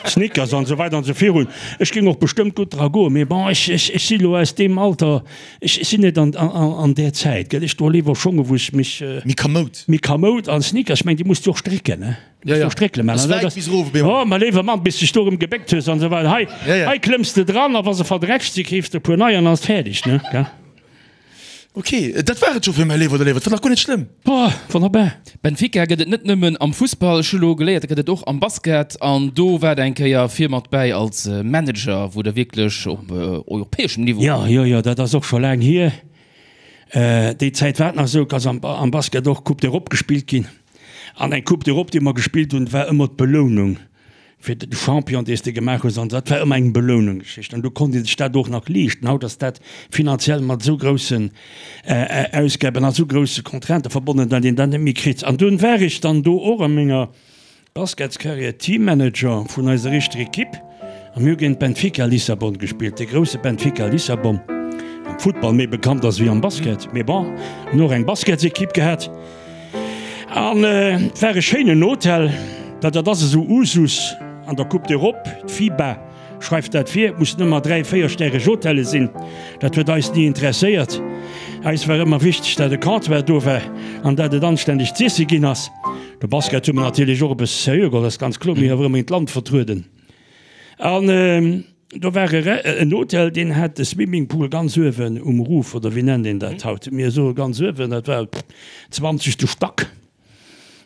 Speaker 3: Sneakers an esou weider an esou virun. Ech géing och bestëmmt gutt dra goen, mee bon, ech si lo aus deem Alter, ech sinn net an där Zäit, gell, ech droe léiwer Schonge wou ech mech.
Speaker 4: Méi kamoud.
Speaker 3: Méi kamoud an Sneakers, ech mengen déi muss de och strécken, ne?
Speaker 4: Ja, ja.
Speaker 3: Stréckele man.
Speaker 4: Ass wäit bis erof op eemol.
Speaker 3: Oh, mäi léiwer Mann, bis de dech do erëm gebéckt hues an esou weider. Hei,
Speaker 4: Ja, ja.
Speaker 3: hei klëmms de dran a wa se verdrätscht si keefs de e puer nei an ass fäerdeg, ne? Gell?
Speaker 4: Ok, dat war et scho fir mäi Léiwer oder Léiwer. Dat war nach guer net schlëmm.
Speaker 3: Boah, wonnerbar.
Speaker 5: Benfica gëtt et net nëmmen am Fussball, ech hu lo geléiert, dat gëtt et och am Basket an do war der eng Kéier vir mat bäi als Manager, wou der wierklech op europäeschem Niveau.
Speaker 3: Jo, jo, jo, dat ass och scho laang hier. Déi Zäit war et nach esou, dass am Basket och Coupe d'Europe gespillt ginn. An eng Coupe d'Europe, déi mer gespillt hunn, war ëmmer d'Belounung fir de Champion, dee s de gemaach hues. An dat war ëmmer eng Belounungsgeschicht. An do konnt ee sech dat och nach leeschten. Haut ass dat finanziell mat esou groussen Ausgaben a esou grousse Contraintë verbonnen, datt een dat net méi kritt. An dunn war ech dann do och a menger Basketscarrière Teammanager vun eiser éischter Ekipp a mir hu géint Benfica Lissabon gespillt, de grousse Benfica Lissabon, am Futtball méi bekannt ass wéi am Basket, mee bon, hunn och eng Basketsekipp gehat an et war e schéinen Hotel, well dat ass esou Usus an der Coupe d'Europe, d'FIBA schreift dat vir, et mussen ëmmer 3, véierstäreg Hotelle sinn, dat huet eis ni interesséiert, eis war ëmmer wichteg, dat e Comptoir do war an dat et anständeg z'iesse ginn ass. De Basket hu mer natierlech och e bësse seriö geholl, dat ass ganz kloer. Mir hu awer ëmmer d'Land vertrueden. An do war en Hotel, deen hat de Swimmingpool ganz uewen um Roof, oder wéi nennt een dat haut? Mir soe ganz uewen, dat war zwanzegste Stack.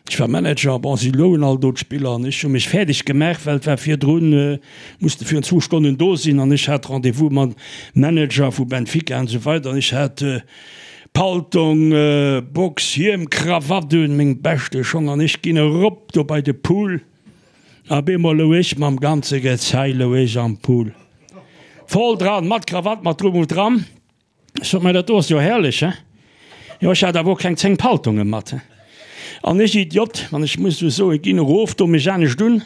Speaker 3: Ech war Manager, bon, si loungen all do d'Spiller an ech hu mech fäerdeg gemaach, well et war virdrun, musste virun zwou Stonnen do sinn an ech hat Rendez-vous mam Manager vu Benfica an esou weider an ech hat Paltong, Box, Hiem, Krawatt un, meng beschte Schong an ech ginn erop do bei de Pool. A bemol lou ech mam ganze Gezei lou ech am Pool. Voll dran, mat Krawatt, mat drum und dran. Ech sot, Mä dat do ass jo herrlech, he? Jo, ech hat awer och keng 10 Paltonge mat, he? An ech Idiot, wann ech muss esou soen, ginn erof, do mech anescht un,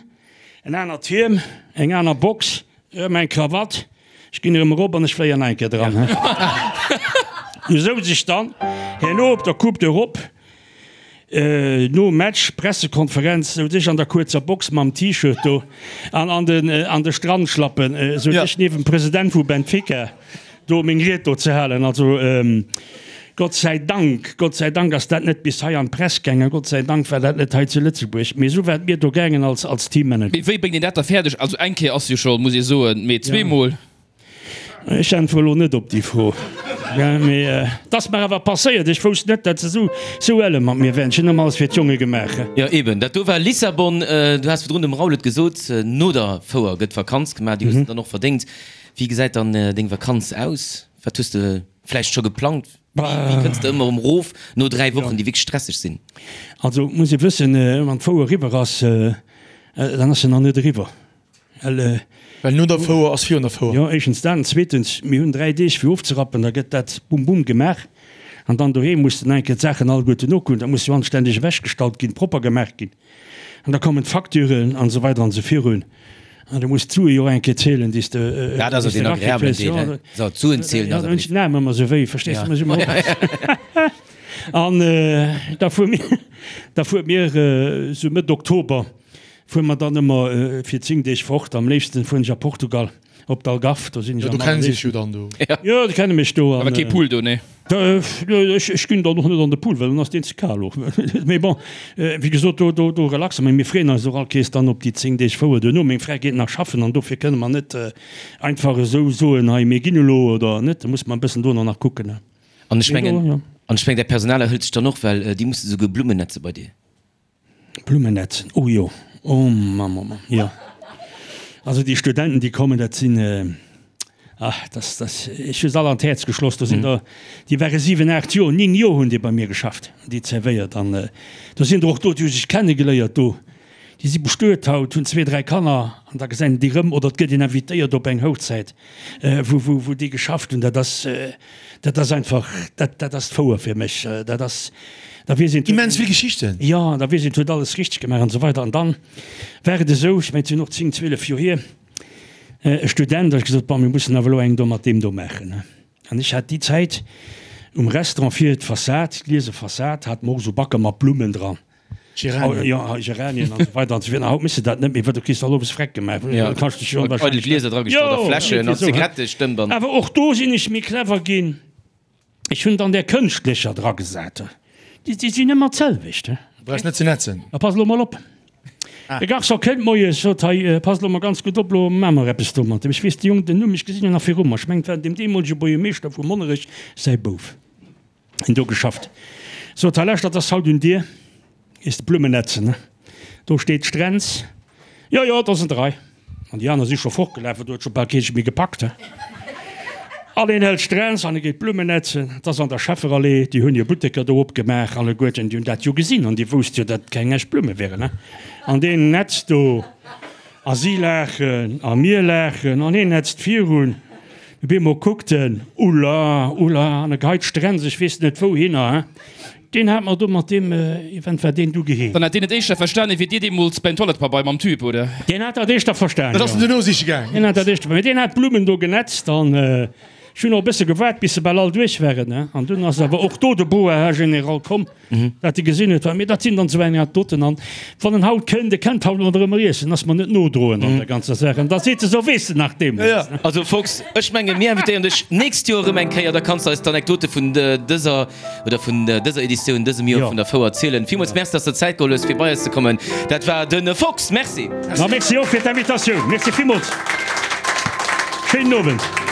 Speaker 3: en anert Hiem, eng aner Box, Erëm eng Krawatt, ech ginn erëm erop an ech fléien nach eng Kéier dran. Du souz ech dann herno op der Coupe d'Europe, nom Match, Pressekonferenz, souz ech an der kuerzer Box mam T-Shirt do an an den an de Strandschlappen, souz ech niewent dem President vu Benfica do meng Ried do ze halen. Also Gott sei Dank, Gott sei Dank ass dat net bis hei an d'Press gaangen, Gott sei Dank war dat net hei zu Lëtzebuerg, mee esou war et mir do gaangen als als Teammanager.
Speaker 5: Mee wéi bréngt een dat da fäerdeg? Also eng Kéier ass jo scho, muss ee soen, mee zweemol?
Speaker 3: Ech äntwere lo net op déi Fro, mee et ass mer awer passéiert. Ech wousst net, dat se esou esou elle mat mir wären. Ech hunn ëmmer alles fir d'Jonge gemaach.
Speaker 2: Jo eben, dat do war Lissabon. Du has virdrun dem Raoul et gesot, no der Fouer gëtt Vakanz gemaach, déi hues de dann och verdéngt. Wéi gesäit dann deng Vakanz aus? Wat hues de vläicht scho geplangt? Wéi kënns de ëmmer erëm erof no 3 Wochen, déi wierklech stresseg sinn?
Speaker 3: Also et muss ee wëssen, wann d'Fouer eriwwer ass, dann ass se nach net eriwwer.
Speaker 4: Well. Well no der Fouer ass virun der Fouer.
Speaker 3: Jo, éischtens dat an zweetens, mir hunn 3 Deeg fir ofzerappen, da gëtt dat bum bum gemaach an dann doheem muss de nach eng Kéier d'Saachen alleguerten nokucken, dat muss jo anständeg ewechgestallt ginn, propper gemaach ginn. An da kommen d'Facturen an esou weider an esou virun. An du muss d'Sue jo och eng Kéier zielen, déi s de
Speaker 2: Dat ass jo deen agreablen Deel, he? So, d'Suen zielen
Speaker 3: ass awer. Ja, den Aarm ëmmer esou wéi, verstees du? Muss ëmmer oppassen. An da fuere mir, da fuere mir esou Mëtt Oktober fuere mer dann ëmmer fir 10 Deeg fort. Am léifsten fueren ech a Portugal. Op d'Algarve, do sinn ech
Speaker 4: am
Speaker 3: allerléifsten.
Speaker 4: Jo, do kennen se sech jo dann do.
Speaker 3: Jo, déi kenne mech do.
Speaker 5: Awer kee Pool do, nee?
Speaker 3: Ech ginn dann och net an de Pool, well dann ass deen ze kal och. Mee bon, wéi gesot, do, do, do relaxe mer. Mir freeën eis och all Kees dann op déi 10 Deeg Fouer duerno. Meng Fra geet nach schaffen an dofir kënne mer net einfach esou soen, hei mir ginn elo oder net. Da musse mer e bëssen dono nach kucken.
Speaker 2: An ech mengen, an ech mengen, däi Personal erhëlt sech dann och, well déi musse souguer Blummen netze bei dir.
Speaker 3: Blummenetzen, oh jo, oh Mamm, oh Mamm, jo. Also déi Studenten, déi kommen, dat sinn, ach, das, das, ech hu se all an d'Häerz geschloss. Do sinn der, déi ware 7, 8 Joer, 9 Joer hunn déi bei mir geschafft, déi zerwéiert. An do sinn der och do, déi hu sech kennegeléiert do. Déi si bestuet haut, hunn zwee, dräi Kanner an da gesäit een déi rëm oder et gëtt een invitéiert op eng Hochzäit, wou, wou, wou déi geschafft hunn. Dat ass, dat ass einfach, dat, dat ass d'Fouer fir mech. Dat ass, da weess een.
Speaker 4: Immens vill Geschichten.
Speaker 3: Jo, da weess een, et huet alles richteg gemaach an esou weider. An dann war et esou, ech mengen, et sinn och 10, 12 Joer hier, e Student, da hu ech gesot, bon, mir mussen awer elo eng do mat deem do maachen. An ech hat déi Zäit um Restaurant vir d'Fassad, d'gliese Fassad, hat mer och esou Backer mat Blummen dran.
Speaker 4: Geranien.
Speaker 3: Jo, Geranien an esou weider an esou virun. A haut méchs de dat net méi, well du kriss all owes Freck gemaach.
Speaker 2: Jo,
Speaker 3: Da kanns de dech jo
Speaker 2: eidel
Speaker 3: wahrscheinlech
Speaker 2: Glieser dragestallt a
Speaker 3: Jo,
Speaker 2: Fläschen an
Speaker 3: esou, hä?
Speaker 2: Zigarettestëmp an.
Speaker 3: Awer och do sinn ech méi clever ginn. Ech hunn dann där kënschtlecher dragesat. Déi, déi sinn ëmmer d'selwecht, hä?
Speaker 4: Du brauchs net ze netzen.
Speaker 3: A pass elo mol op. De Garçon kënnt moies, sot, Hei, passt elo mol ganz gutt op, elo maache mer eppes do mat deem. Ech weess de Jong den Numm, ech gesinn en nach viru mer. Ech mengen, et war deem deemolege Buergermeeschter vu Monnerech säi Bouf, deen do geschafft. Sot, Hei, lauschtert, ass haut un dir, gees de Blummen netzen, ne? Do steet d'Strenz. Jo, jo, et ass an der Rei. An déi aner si scho fortgelaf, well do huet scho bal kee sech méi gepackt. An een hält d'Strenz an e geet Blummen netzen. Et ass an der Schefferallee, déi hunn hir Butteker do opgemaach alleguerten, déi hunn dat jo gesinn an déi wousste jo, datt et keng echt Blumme wieren. An deen netzt do a si laachen a mir laachen an hien netzt virun. Op eemol kuckt en, Ulla, ulla, an e geheit d'Strenz, ech weess net wouhinner. Deen hat mer do mat deem Event war deen du geheem.
Speaker 5: Dann hat deen et éischter verstanen wéi dir deemools beim Toilettepabeier mam Tube, oder?
Speaker 3: Deen hat dat éischter verstanen,
Speaker 4: Dat ass en
Speaker 3: jo.
Speaker 4: duerno siche gaang.
Speaker 3: Deen hat dat éischter, mee deen hat d'Blummen do genetzt an ech hunn och e bësse gewaart bis se bal all duerch waren, ne. An dunn ass awer och do de Boa, Här General, komm, dat e gesinn huet, wat, mee dat sinn dann esou eng Anekdoten an wann en haut kënnt, e kennt haut mat erëm iessen, ass mer net nodroen an der ganzer Saach an da seet e sou, weess de nach deemools, ne.
Speaker 2: Also Fox, ech menge mir invitéieren dech nächst Joer erëm eng Kéier, da kanns de eis d'Anekdote vun dëser oder vun dëser Editioun dësem Joer vun der Fouer zielen. Villmools Merci, dass der Zäit geholl hues fir bei eis ze kommen. Dat war de Fox. Merci.
Speaker 3: Ma merci och fir d'Invitatioun. Merci villmools. Schéinen Owend.